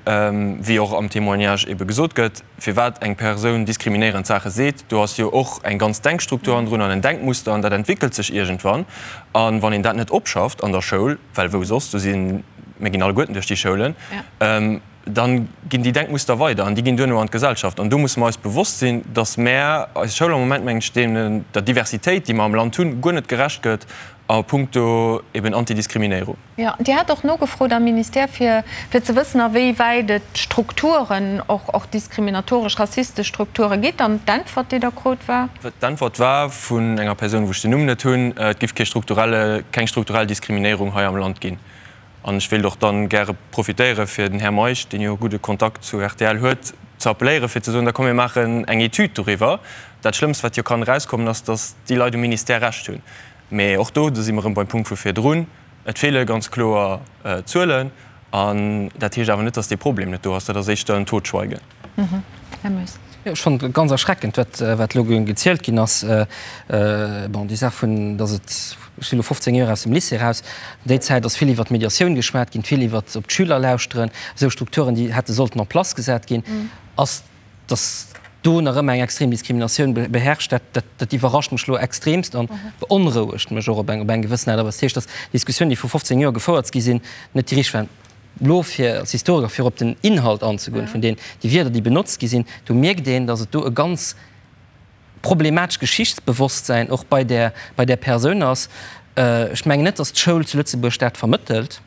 wéi och am Témoignage ebe gesot gëtt, firwat eng Persoun diskriminéierend Saache seet, do ass jo och eng ganz Denkstruktur hannendrun an en Denkmuster an dat entwéckelt sech iergendwann. A wann een dat net opschafft an der Schoul, well wou soss, do sinn, mir ginn alleguerten duerch déi Schoulen, dann ginn déi Denkmuster weider an déi ginn duerno an d'Gesellschaft. An do musse mer eis bewosst sinn, dass mär, eis Schoul am Moment, mengen ech, deenen, der Diversitéit, déi mer am Land hunn, guer net gerecht gëtt a puncto eben Antidiskriminéierung. Jo, Dir hat och nogefrot am Ministère, fir fir ze wëssen, a wéi wäit et Strukturen, och och diskriminatoresch, rassistesch Strukture gitt. An d'Äntwert, déi Der krut, war? D'Äntwert war vun enger Persoun, wou ech den Numm net hunn, et giff kee strukturelle, keng strukturell Diskriminéierung hei am Land ginn. An ech wéilt och dann gäre profitéieren, fir den Här Meisch, deen jo e gudde Kontakt zu rtl huet, ze appelléieren, fir ze soen, da komm mir maachen eng Etüd doriwwer. Dat Schlëmmst, wat jo kann erauskommen, ass, datt déi Leit um Ministère Recht hunn. Mee och do, do si mer erëm beim Punkt vu virdrun, et feele ganz kloer Zuelen. An dat heescht awer net, datt dee Problem net do ass. Dat ass éischter en Totschweigen. Här Moes. Jo, ech fannen et ganz erschreckend, wat, wat elo gezielt ginn ass. Bon, déi Saach vun, datt et, ech sinn elo 15 Joer aus dem Lycée eraus, déi Zäit ass vill iwwert d'Mediatioun geschwat ginn, vill iwwert op d'Schüler lauschteren, esou Strukturen, déi hätte sollten en place gesat ginn, ass, datt do nach ëmmer eng extrem Diskriminatioun beherrscht, dat, dat, dat iwwerrascht mech elo extremst an beonrouegt mech och op eng, op eng gewëssen Aart a Weis. Dat heescht, datt Diskussiounen, déi vru 15 Joer gefouert gi sinn, net déi richteg waren. Elo fir als Historiker fir op den Inhalt anzegoen vun den déi Wierder déi benotzt gi sinn, do mierkt een, datt et do e ganz problematesch Geschichtsbewosstsäin och bei där bei där Persoun ass. Ech mengen net, datt d'Schoul zu Lëtzebuerg dat vermëttelt,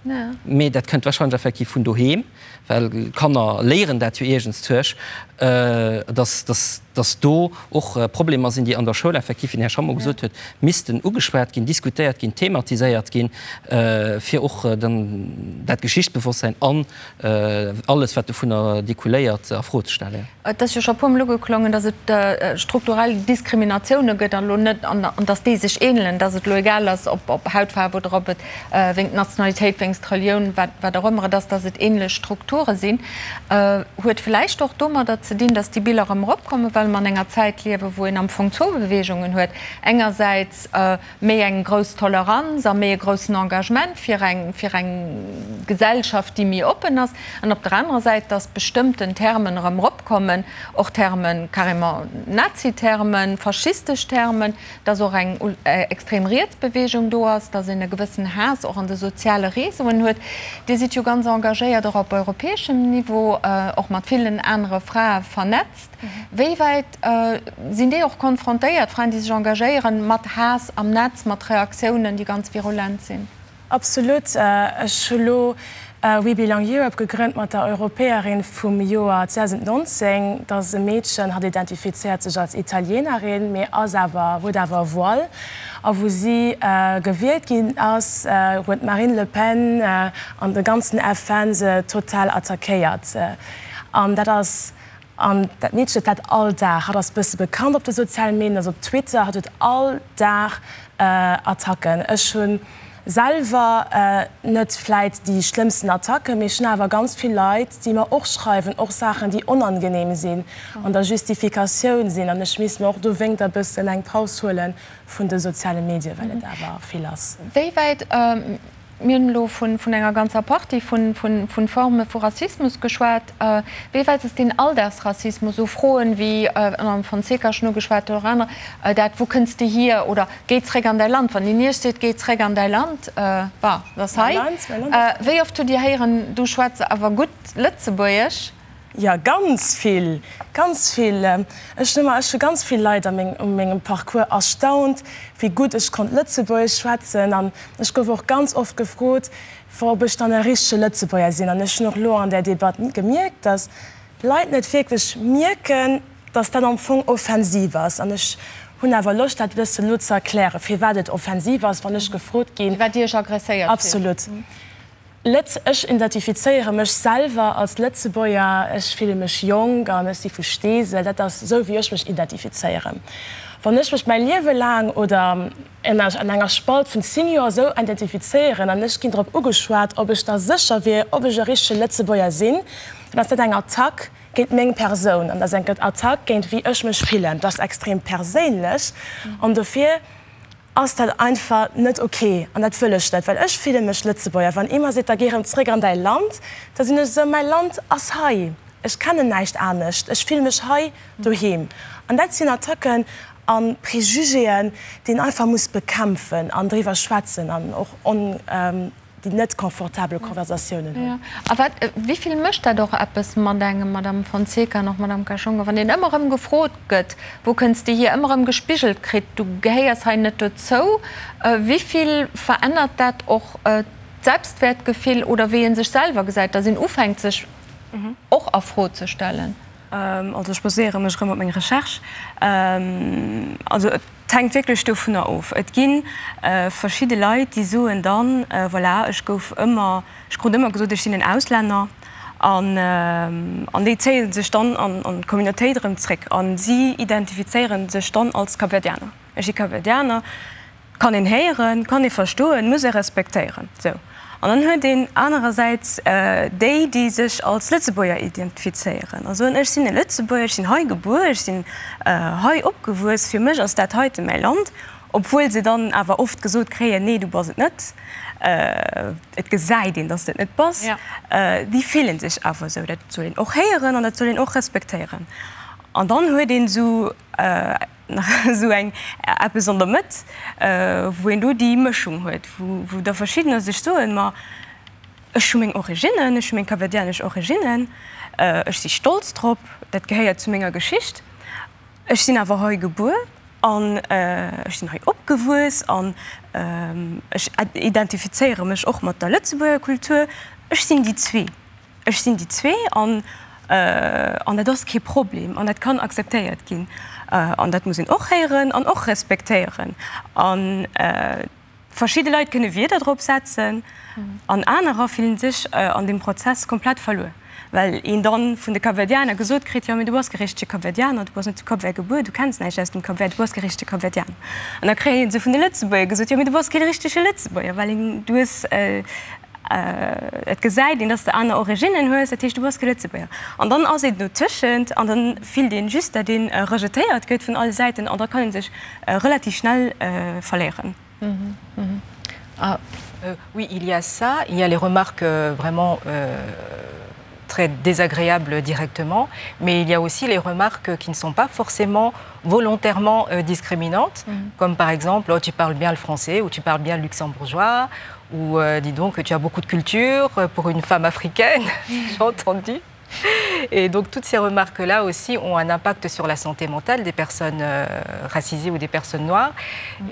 mee dat kënnt wahrscheinlech effektiv vun doheem, well Kanner léieren dat jo iergendszuech, datt datt datt do och Problemer sinn, déi an der Schoul effektiv, wéi den Här Schammo gesot huet, missten ugeschwat ginn, diskutéiert ginn, thematiséiert ginn, fir och dann dat Geschichtsbewosstsein an alles, wat dovunner découléiert, a Fro ze stellen. Et ass jo scho e puermol ugeklongen, datt et strukturell Diskriminatioune gëtt an elo net, an datt déi sech ähnelen, datt et elo egal ass, ob Hautfaarf oder ob et wéinst Nationalitéit, wéinst Relioun, wat wat och ëmmer et ass, datt et ähnlech Strukture sinn, huet vläicht och domadder ze dinn, datt déi Biller erëm eropkommen, well mer an enger Zäit liewen, wou een am Fong zwou Beweegungen huet, engersäits méi eng grouss Toleranz a méi e groussen Engagement fir eng fir eng Gesellschaft, déi méi oppen ass, an op der anerer Säit, datt bestëmmten Termen erëm eropkommen, och Termen, carrément Nazi-Termen, faschistesch Termen, dass och eng extrem riets Bewegung do ass, dass een e gewëssen Haass och an de soziale Réseauen huet. Dir sidd jo ganz engagéiert och op europäeschem Niveau, och mat villen anere Frae vernetzt. Wéi wäit sinn déi och konfrontéiert, Fraen, déi sech engagéieren, mat Haass am Netz, mat Reaktiounen, déi ganz virulent sinn? Absolut. Ech hu lo We Belong Europe gegrënnt mat der Europäerin vum Joer 2019. Dat ass e Meedchen, hatt identifizéiert sech als Italienerin, mee ass awer, huet awer e Voile. A wou si gewielt ginn ass, huet d'Marine Le Pen an de ganzen FN se total attackéiert. An dat ass An dat Meedchen huet dat all Dag. Hatt ass bësse bekannt op de soziale Medien, ass op Twitter. Hatt huet all Dag Attacken. Ech hu selwer net vläit déi schlëmmsten Attacken, mee ech hunn awer ganz vill Leit, déi mer och schreiwen, och Saachen, déi onangenehm sinn, an der Justifikatioun sinn. An ech misst mer och dowéinter bëssen eng Paus huele vun de soziale Medien, well et awer vill ass. Wéi wäit Mir hunn elo vun enger ganzer Partie vu Forme vu Rassismus geschwat. Wéi wäit ass deen Alldagsrassismus, esou Froen, wéi den Här Fonseca schonn ugeschwat huet, oder aner, dat Wou kënns de hier? oder Géi zréck an däi Land. Wann een Iech seet, Géi zréck an däi Land, bah, dat ass hei. Wéi oft hutt Dir héieren, Du schwätz awer gutt Lëtzebuergesch? Jo, ganz vill, ganz vill. Ech hunn ëmmer, ech hu ganz vill Leit a meng, u mengem Parcours erstaunt, wéi gutt ech konnt Lëtzebuergesch schwätzen. An ech gouf och ganz oft gefrot, ob ech dann e richtege Lëtzebuerger sinn. An ech hunn och elo an där Debatt gemierkt, datt Leit net wierklech mierken, datt dat am Fong offensiv ass. An ech hunn awer Loscht, dat e bëssen elo ze erklären, firwat et offensiv ass, wann ech gefrot ginn. Firwat Dir Iech agresséiert fillt. Absolut. Lëtz, ech identifizéiere mech selwer als Lëtzebuerger, ech fille mech jonk an ech si vu Steesel, dat ass esou wéi ech mech identifizéieren. Wann ech mech mäi Liewe laang oder an enger Spalt vun 10 Joer esou identifizéieren an ech ginn drop ugeschwat, ob ech da sécher wier, ob ech e richtege Lëtzebuerger sinn, dann ass dat eng Attack géint meng Persoun an dat ass eng Attack géint wéi ech mech fillen. Dat ass extrem perséinlech an dofir ass dat einfach net ok an dat wëll ech net, well ech fille mech Lëtzebuerger. Wann ee mer seet, da géi erëm zréck an däi Land, da sinn ech esou, mäi Land ass hei, ech kennen näischt anescht, ech fille mech hei doheem. An dat sinn Attacken a Prejugéen, déi een einfach muss bekämpfen an driwwer schwätzen an och on. déi net confortabel Konversatiounen hunn. A wat, wéi vill mécht dat och eppes mat engem, Madame Fonseca an och Madame Kashonga, wann een ëmmer erëm gefrot gëtt, wou kënns de hier, ëmmer erëm gespigelt kritt, du gehéiers hei net dozou, wéi vill verännert dat och d'Selbstwäertgefill oder wéi ee sech selwer gesäit, datt een ufänkt sech och a Fro ze stellen? Also ech baséiere mech erëm op meng Recherche. Also et hänkt wierklech dovunner of. Et gi verschidde Leit, déi soen dann, voilà, ech gouf ëmmer, ech krut ëmmer gesot, ech sinn en Auslänner. An an déi zéie sech dann an d'Communautéit erëm zréck a si identifizéiere sech dann als Kapverdianer. Ech si Kapverdianer. Kann een héieren, kann ee verstoen, muss ee respektéieren. Sou. An dann huet een anerersäits déi, déi sech als Lëtzebuerger identifizéieren a soen, ech sinn e Lëtzebuerger, ech sinn hei gebuer, ech sinn hei opgewuess, fir mech ass dat heite mäi Land, obwuel se dann awer oft gesot kréien, nee, du bass et net, et gesäit een, dass de et net bass. Déi fillen sech awer esou. Dat soll een och héieren an dat soll een och respektéieren. An dann huet een esou. nach esou eng eppes an der Mëtt, wou een do déi Mëschung huet, wou da verschiddener sech soen, ma ech hu meng Originnen, ech hu meng kapverdianesch Originnen, ech si stolz drop, dat gehéiert zu menger Geschicht, ech sinn awer hei gebuer an ech sinn hei opgewuess an ech identifizéiere mech och mat der Lëtzebuerger Kultur, ech sinn déi zwee. Ech sinn déi zwee an an dat ass kee Problem an dat kann akzeptéiert ginn. An dat muss een och héieren an och respektéieren. A verschidde Leit kënne Wierder drop setzen an anerer fillen sech an deem Prozess komplett verluer, well een dann vun de Kapverdianer gesot kritt, jo mee du bass kee richtege Kapverdianer, du bass net zu Cap Vert gebuer, du kenns näischt aus dem Cap Vert, du bass kee richtege Kapverdianer. An da kréie se vun de Lëtzebuerger gesot, jo mee du bass kee richtege Lëtzebuerger, well een du hues Et gesäit een, dass de aner Originnen hues, dat heescht, du bass kee Lëtzebuerger. An dann ass een dotëschent an dann fillt een just, dat een rejetéiert gëtt vun alle Säiten an da kann een sech relativ schnell verléieren. Oui, il y a ça, il y a les remarques vraiment très désagréables directement, mais il y a aussi les remarques qui ne sont pas forcément volontairement discriminantes, comme par exemple oh, tu parles bien le français ou tu parles bien le luxembourgeois ou euh, dis donc que tu as beaucoup de culture pour une femme africaine, j'ai entendu. Et donc toutes ces remarques-là aussi ont un impact sur la santé mentale des personnes euh, racisées ou des personnes noires.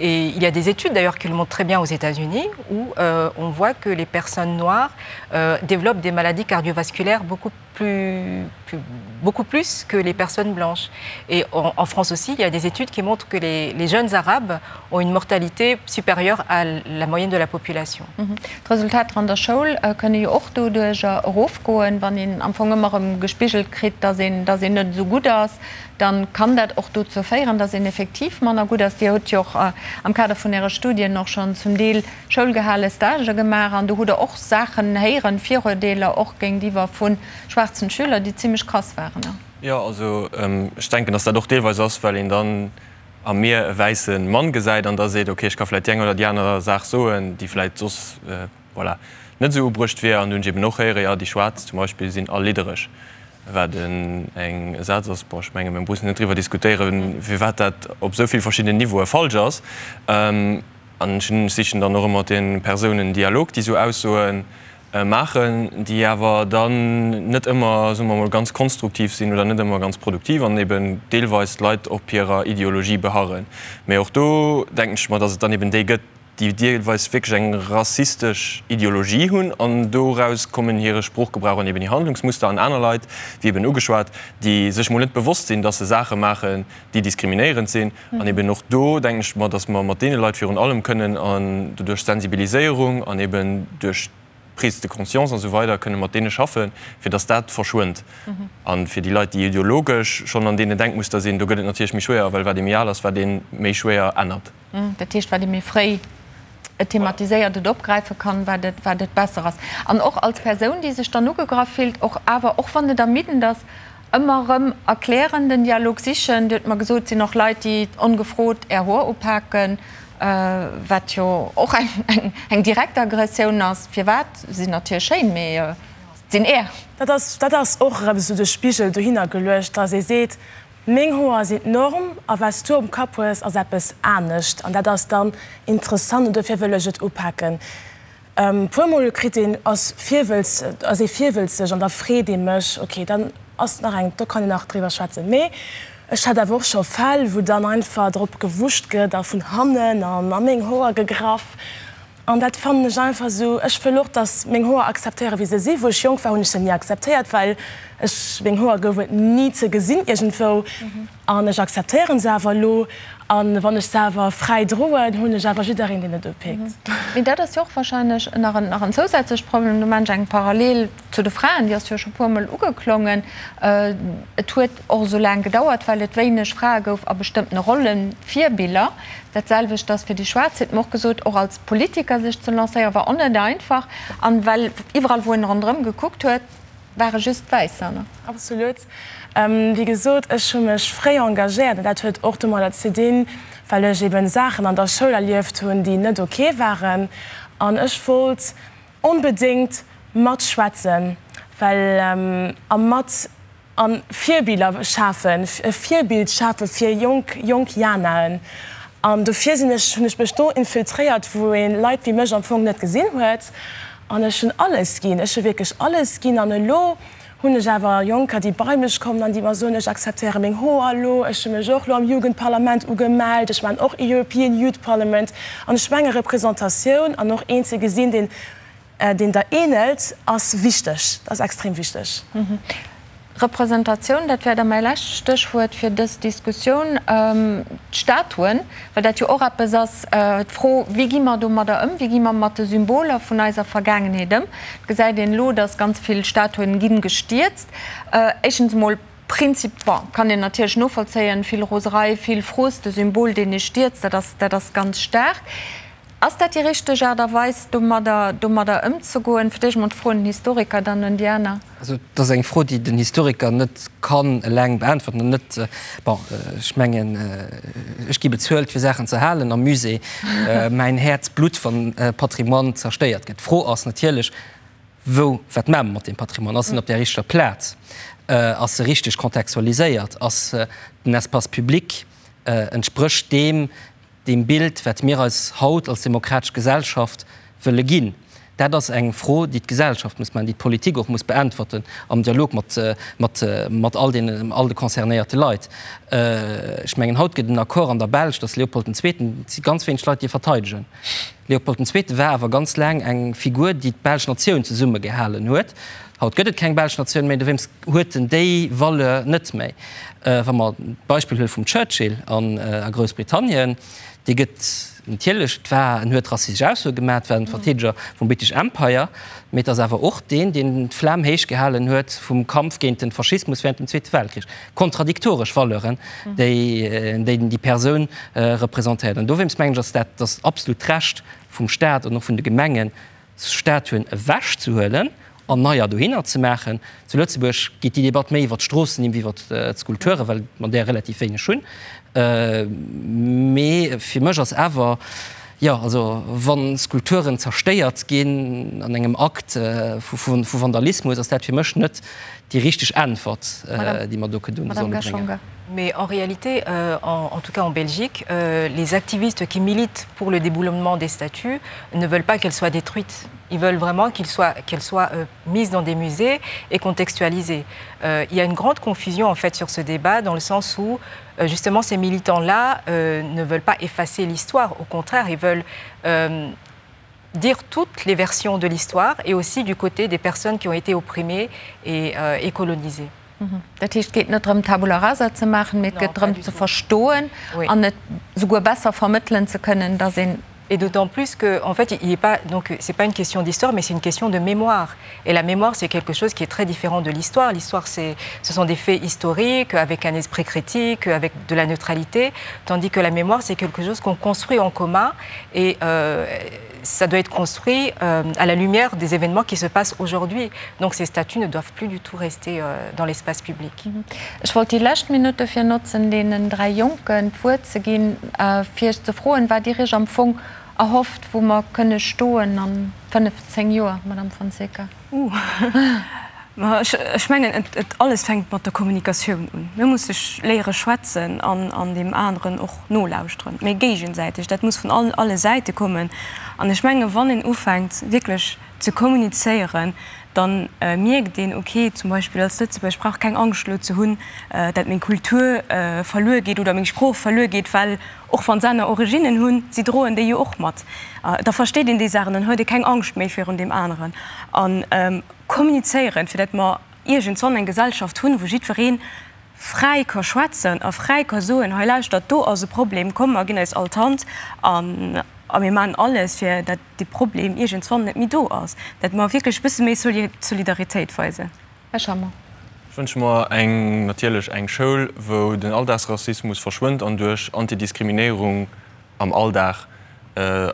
Et il y a des études d'ailleurs qui le montrent très bien aux États-Unis où euh, on voit que les personnes noires euh, développent des maladies cardiovasculaires beaucoup plus, plus, beaucoup plus que les personnes blanches. Et en, en France aussi, il y a des études qui montrent que les, les jeunes arabes ont une mortalité supérieure à la moyenne de la population. Mhm. D'Resultater an der Schoul kënne jo och doduercher erofgoen, wann een am Fong ëmmer erëm gespigelt kritt, dass een, dass een net esou gutt ass, dann kann dat och dozou féieren, dass een effektiv manner gutt ass. Dir hutt jo och am Kader vun Äre Studien och schonn zum Deel schoulgehale Stagë gemaach an do hutt Der och Saachen héieren, Viruerdeeler och géintiwwer vu schwaarzen Schüler, déi zimmlech krass waren. Jo, also ech denken, dass dat och deelweis ass, well een dann a mir e wäisse Mann gesäit an da seet, ok, ech ka vläicht déi eng oder déi aner Saach soen, déi vläicht soss, voilà, net esou ubruecht wier. An do hunn ech eben och héieren, jo, déi Schwaarz zum Beispill sinn all liddereg, wat en eng e Saz ass, bon, ech menge mir mussen net driwwer diskutéieren, firwat dat op esou vill verschiddenen Niveaue falsch ass. An ech sichen dann och ëmmer mat de Persounen Dialog, déi esou Aussoe maachen, déi awer dann net ëmmer, soe mer emol, ganz konstruktiv sinn oder net ëmmer ganz produktiv an eben deelweis d'Leit op hirer Ideologie beharren. Mee och do denken ech mer, datt et dann eben déi gëtt, déi deelweis wierklech eng rassistesch Ideologie hunn an doraus kommen hire Sproochgebrauch an eben hir Handlungsmuster an aner Leit, wéi eben ugeschwat, déi sech mol net bewosst sinn, datt se Saache maachen, déi diskriminéierend sinn. An eben och do denken ech mer, datt mer mat deene Leit virun allem kënnen an doduerch Sensibiliséierung an eben duerch. Prise de conscience an esou weider kënne mat deene schaffen, fir datt dat verschwënnt. A fir déi Leit, déi ideologesch schonn an deenen Denkmuster sinn, do gëtt et natierlech méi schwéier, well wat ee méi al ass, wat ee méi schwéier ännert. Dat heescht, wat ee méi fréi et thematiséiert, et opgräife kann, wat et, wat et besser ass. An och als Persoun, déi sech dann ugegraff fillt, och awer, och wann et ermiddend ass, ëmmer erëm erklären, den Dialog sichen. Dir hutt mer gesot, et sinn och Leit, déi ongefrot Är Hoer upaken, wat jo och eng, eng direkt Aggressioun ass. Firwat? Se sinn natierlech schéin, mee et sinn Är. Dat ass, dat ass och erëm esou de Spigel dohinner geluecht, dass ee seet, Meng Hoer sinn d'Norm a wat s du um Kapp hues ass eppes anescht an dat ass dann interessant an dofir wëll ech et upaken. Puer mol kritt een ass virwëlz ass ee virwëlzeg an da freet ee mech, ok dann ass nach eng, do kann een nach driwwer schwätzen. Mee ech hat awer och scho Fäll wou dann einfach drop gewuscht gëtt a vun hannen an a meng Hoer gegraff An dat fannen ech einfach esou, ech wëll och, dass meng Hoer akzeptéieren, wéi se sinn. Wou ech jonk war, hunn ech se ni akzeptéiert, well ech, meng Hoer gouf et ni ze gesinn iergendwou. An ech akzeptéieren se awer elo. An wann ech se awer fräi droen, hunn ech awer jiddereen, deen et upikt. Mee dat ass jo och wahrscheinlech nach en, nach en zousätzlecht Problem. Do maachen ech eng Parallel zu de Fraen, déi ass jo scho puermol ugeklongen. Et huet och esou laang gedauert, well et wéineg Frae gouf a bestëmmtene Rollen, Virbiller. Dat selwecht ass fir déi Schwaarz, huet mer och gesot, och als Politiker sech ze lancéieren, war och net einfach. An well iwwerall wou en ronderëm gekuckt huet, ware just Wäisser, ne? Absolut. Wéi gesot, ech hu mech fréi engagéiert an dat huet och domadder ze dinn, well ech eben Saachen an der Schoul erlieft hunn, déi net ok waren. An ech wollt onbedéngt matschwätzen, well a mat A Virbiller schafen, e Virbild schafe fir jonk, jonk Janaen. An dofir sinn ech, hunn ech mech do infiltréiert, wou ee Leit wéi mech am Fong net gesinn huet. An ech hunn alles ginn, ech hu wierklech alles ginn. An elo hunn ech awer Jonker, déi bei mech kommen an déi mer soen, ech akzeptéiere meng Hoer elo, ech hu mech och elo am Jugendparlament ugemellt, ech maachen och European Youth Parliament. An ech menge Representatioun an och een ze gesinn, deen Deen der ähnelt, ass wichteg, ass extrem wichteg. Representatioun, dat wär da mäi lescht Stéchwuert fir dës Diskussioun. D'Statuen, well dat jo och eppes ass, d'Fro, wéi gi mer domadder ëm, wéi gi mer mat de Symboler vun eiser Vergaangenheet ëm? Et gesäit een elo, datt ganz vill Statuen gi gestierzt. Éischtens emol Prinzip, bon, kann een natierlech novollzéien, vill Roserei, vill Frust, e Symbol, deen ee stierzt, dat ass, dat ass ganz staark. Ass dat déi richteg Aart a Weis, domadder, domadder ëmzegoen? Fir d'éischt emol d'Fro un den Historiker, dann un déi aner. Also, et ass eng Fro, déi den Historiker net kann eleng beäntwerten an net, bon, ech mengen, ech gi bezuelt, fir Saachen ze halen am Musée. Mäin Häerz blutt, wann Patrimoine zerstéiert gëtt. D'Fro ass natierlech, Wou, wat maache mer mat deem Patrimoine? Ass en op där richteger Plaz? Ass e richteg kontextualiséiert? Ass den Espace public, entsprécht deem, deem Bild, wat mir eis haut als demokratesch Gesellschaft wëlle ginn? Dat ass eng Fro, déi d'Gesellschaft muss maachen, déi d'Politik och muss beäntwerten am Dialog mat, mat, mat all deenen, all de concernéierte Leit. Ech mengen, haut gëtt en Accord an der Belsch, datt Leopold den Zweeten, et si ganz wéineg Leit, déi e verteidegen. Leopold den Zweete war awer ganz laang eng Figur, déi d'belsch Natioun zesummegehalen huet. Haut gëtt et keng belsch Natioun méi, dowéinst huet en déi Valeur net méi. Wa mer d'Beispill huele vum Churchill a Groussbritannien, dee gëtt natierlech, et war, en huet rassistesch Aussoe gemaach, et war en Verteedeger vum British Empire, mee et ass awer och deen, deen d'Flam héich gehalen huet vum Kampf géint de Faschismus während dem Zweete Weltkrich. Kontradiktoresch Valeuren, déi déi Persoun representéiert. An dowéinst mengen ech, ass dat ass absolut d'Recht vum Staat an och vun de Gemengen, Statuen ewech ze huelen an neier dohinner ze maachen. Zu Lëtzebuerg geet déi Debatt méi iwwer d'Stroossennimm wéi iwwer d'Skulpturen, well mer där relativ wéineg hunn. Mee fir mech ass awer, jo, also wa Skulpturen zerstéiert ginn an engem Akt vu Vandalismus, ass dat fir mech net déi richteg Äntwert, déi mer do kënnen solle bréngen. Mais en réalité, euh, en, en tout cas en Belgique, euh, les activistes qui militent pour le déboulonnement des statues ne veulent pas qu'elles soient détruites. Ils veulent vraiment qu'elles soient, qu soient euh, mises dans des musées et contextualisées. Euh, il y a une grande confusion en fait sur ce débat dans le sens où euh, justement ces militants-là euh, ne veulent pas effacer l'histoire, au contraire, ils veulent euh, dire toutes les versions de l'histoire et aussi du côté des personnes qui ont été opprimées et, euh, et colonisées. Mhm. Dat heescht, et geet net drëm, Tabula rasa ze maachen, mee et geet drëm ze verstoen an et souguer besser vermëttelen ze kënnen, datt een. Et d'autant plus que, en fait, il est pas, donc c'est pas une question d'histoire, mais c'est une question de mémoire. Et la mémoire, c'est quelque chose qui est très différent de l'histoire. L'histoire, ce sont des faits historiques, avec un esprit critique, avec de la neutralité, tandis que la mémoire, c'est quelque chose qu'on construit en commun et euh, ça doit être construit euh, à la lumière des événements qui se passent aujourd'hui. Donc ces statues ne doivent plus du tout rester euh, dans l'espace public. Mhm. Ech wollt déi lescht Minutt dofir notzen, deenen 3 Jonken d'Wuert ze ginn, fir iech ze froen, wat Dir Iech am Fong erhofft, wou mer kënne stoen a 5, 10 Joer, Madame Fonseca. Ooh, ma ech mengen, et alles fänkt mat der Kommunikatioun un. Mir musse léiere schwätzen an deem aneren och nolauschteren, mee géigesäiteg. Dat muss vun alle Säite kommen. An ech menge wann een ufänkt wierklech ze kommunizéieren, dann mierkt een, ok, zum Beispill als Lëtzebuerger, ech brauch keng Angscht elo ze hunn, dat meng Kultur verluer geet oder meng Sprooch verluer geet, well och wann se aner Originnen hunn, si droen déi jo och mat. Da versteet een déi Saachen, dann huet ee keng Angscht méi virun deem aneren. A kommunizéieren, fir dat mer iergendswann eng Gesellschaft hunn, wou jiddweree fräi ka schwätzen a fräi ka soen, hei lauschtert, do ass e Problem, komm mer ginn eis all d'Hand a mir maachen alles, fir dat dee Problem iergendswann net méi do ass, dat mer wierklech e bësse méi Solidaritéit weisen. Här Schammer. Ech wënsche mer eng, natierlech eng Schoul, wou den Alldagsrassismus verschwënnt an duerch Antidiskriminéierung am Alldag,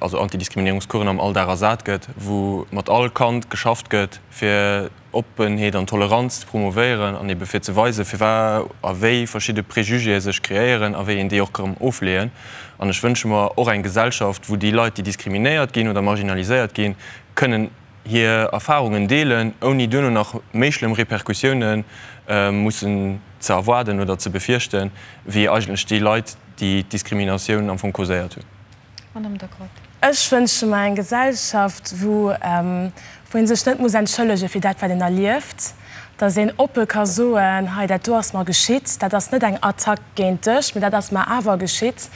also Antidiskriminéierungscoursen am Alldag ersat gëtt, wou mat all Kand geschafft gëtt, fir Oppenheet an Toleranz ze promovéieren an ebe fir ze weisen, firwat a wéi verschidde Préjugéë sech kreéieren a wéi een déi och ka ofleeën. An ech wënsche mer och eng Gesellschaft, wou déi Leit, déi diskriminéiert ginn oder marginaliséiert ginn, kënnen hir Erfarungen deelen, ouni duerno nach méi schlëmm Repercussioune mussen ze erwaarden oder ze befierchten, wéi eigentlech déi Leit, déi d'Diskriminatioun am Fong causéiert hunn. Madame de Groot. Ech wënsche mer eng Gesellschaft, wou wou ee sech net muss entschëllege fir dat, wat een erlieft, datt een oppe ka soen, hei dat do ass mer geschitt, dat ass net eng Attack géint dech, mee dat ass mer awer geschitt,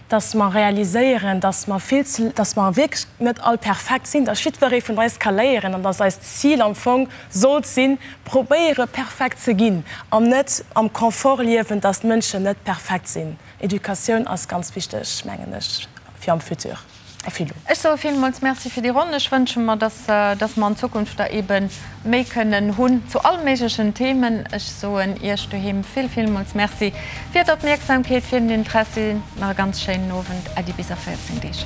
datt mer realiséieren, datt mer vill ze, datt mer wierklech net all perfekt sinn, datt jiddweree vun eis ka léieren an datt eist Zil am Fong sollt sinn, probéiere perfekt ze ginn an net am Confort liewen, datt d'Mënschen net perfekt sinn. Educatioun ass ganz wichteg, mengen ech, fir am Futur a fir elo. Ech soe villmools Merci fir déi Ronn. Ech wënsche mer, dass, dass mer an Zukunft der eebe méi kënnen hunn zu all méiglechen Themen. Ech soen Iech doheem vill, villmools Merci fir d'Opmierksamkeet, fir den Interessi. Nach e ganz schéinen Owend. Äddi bis a 14 Deeg.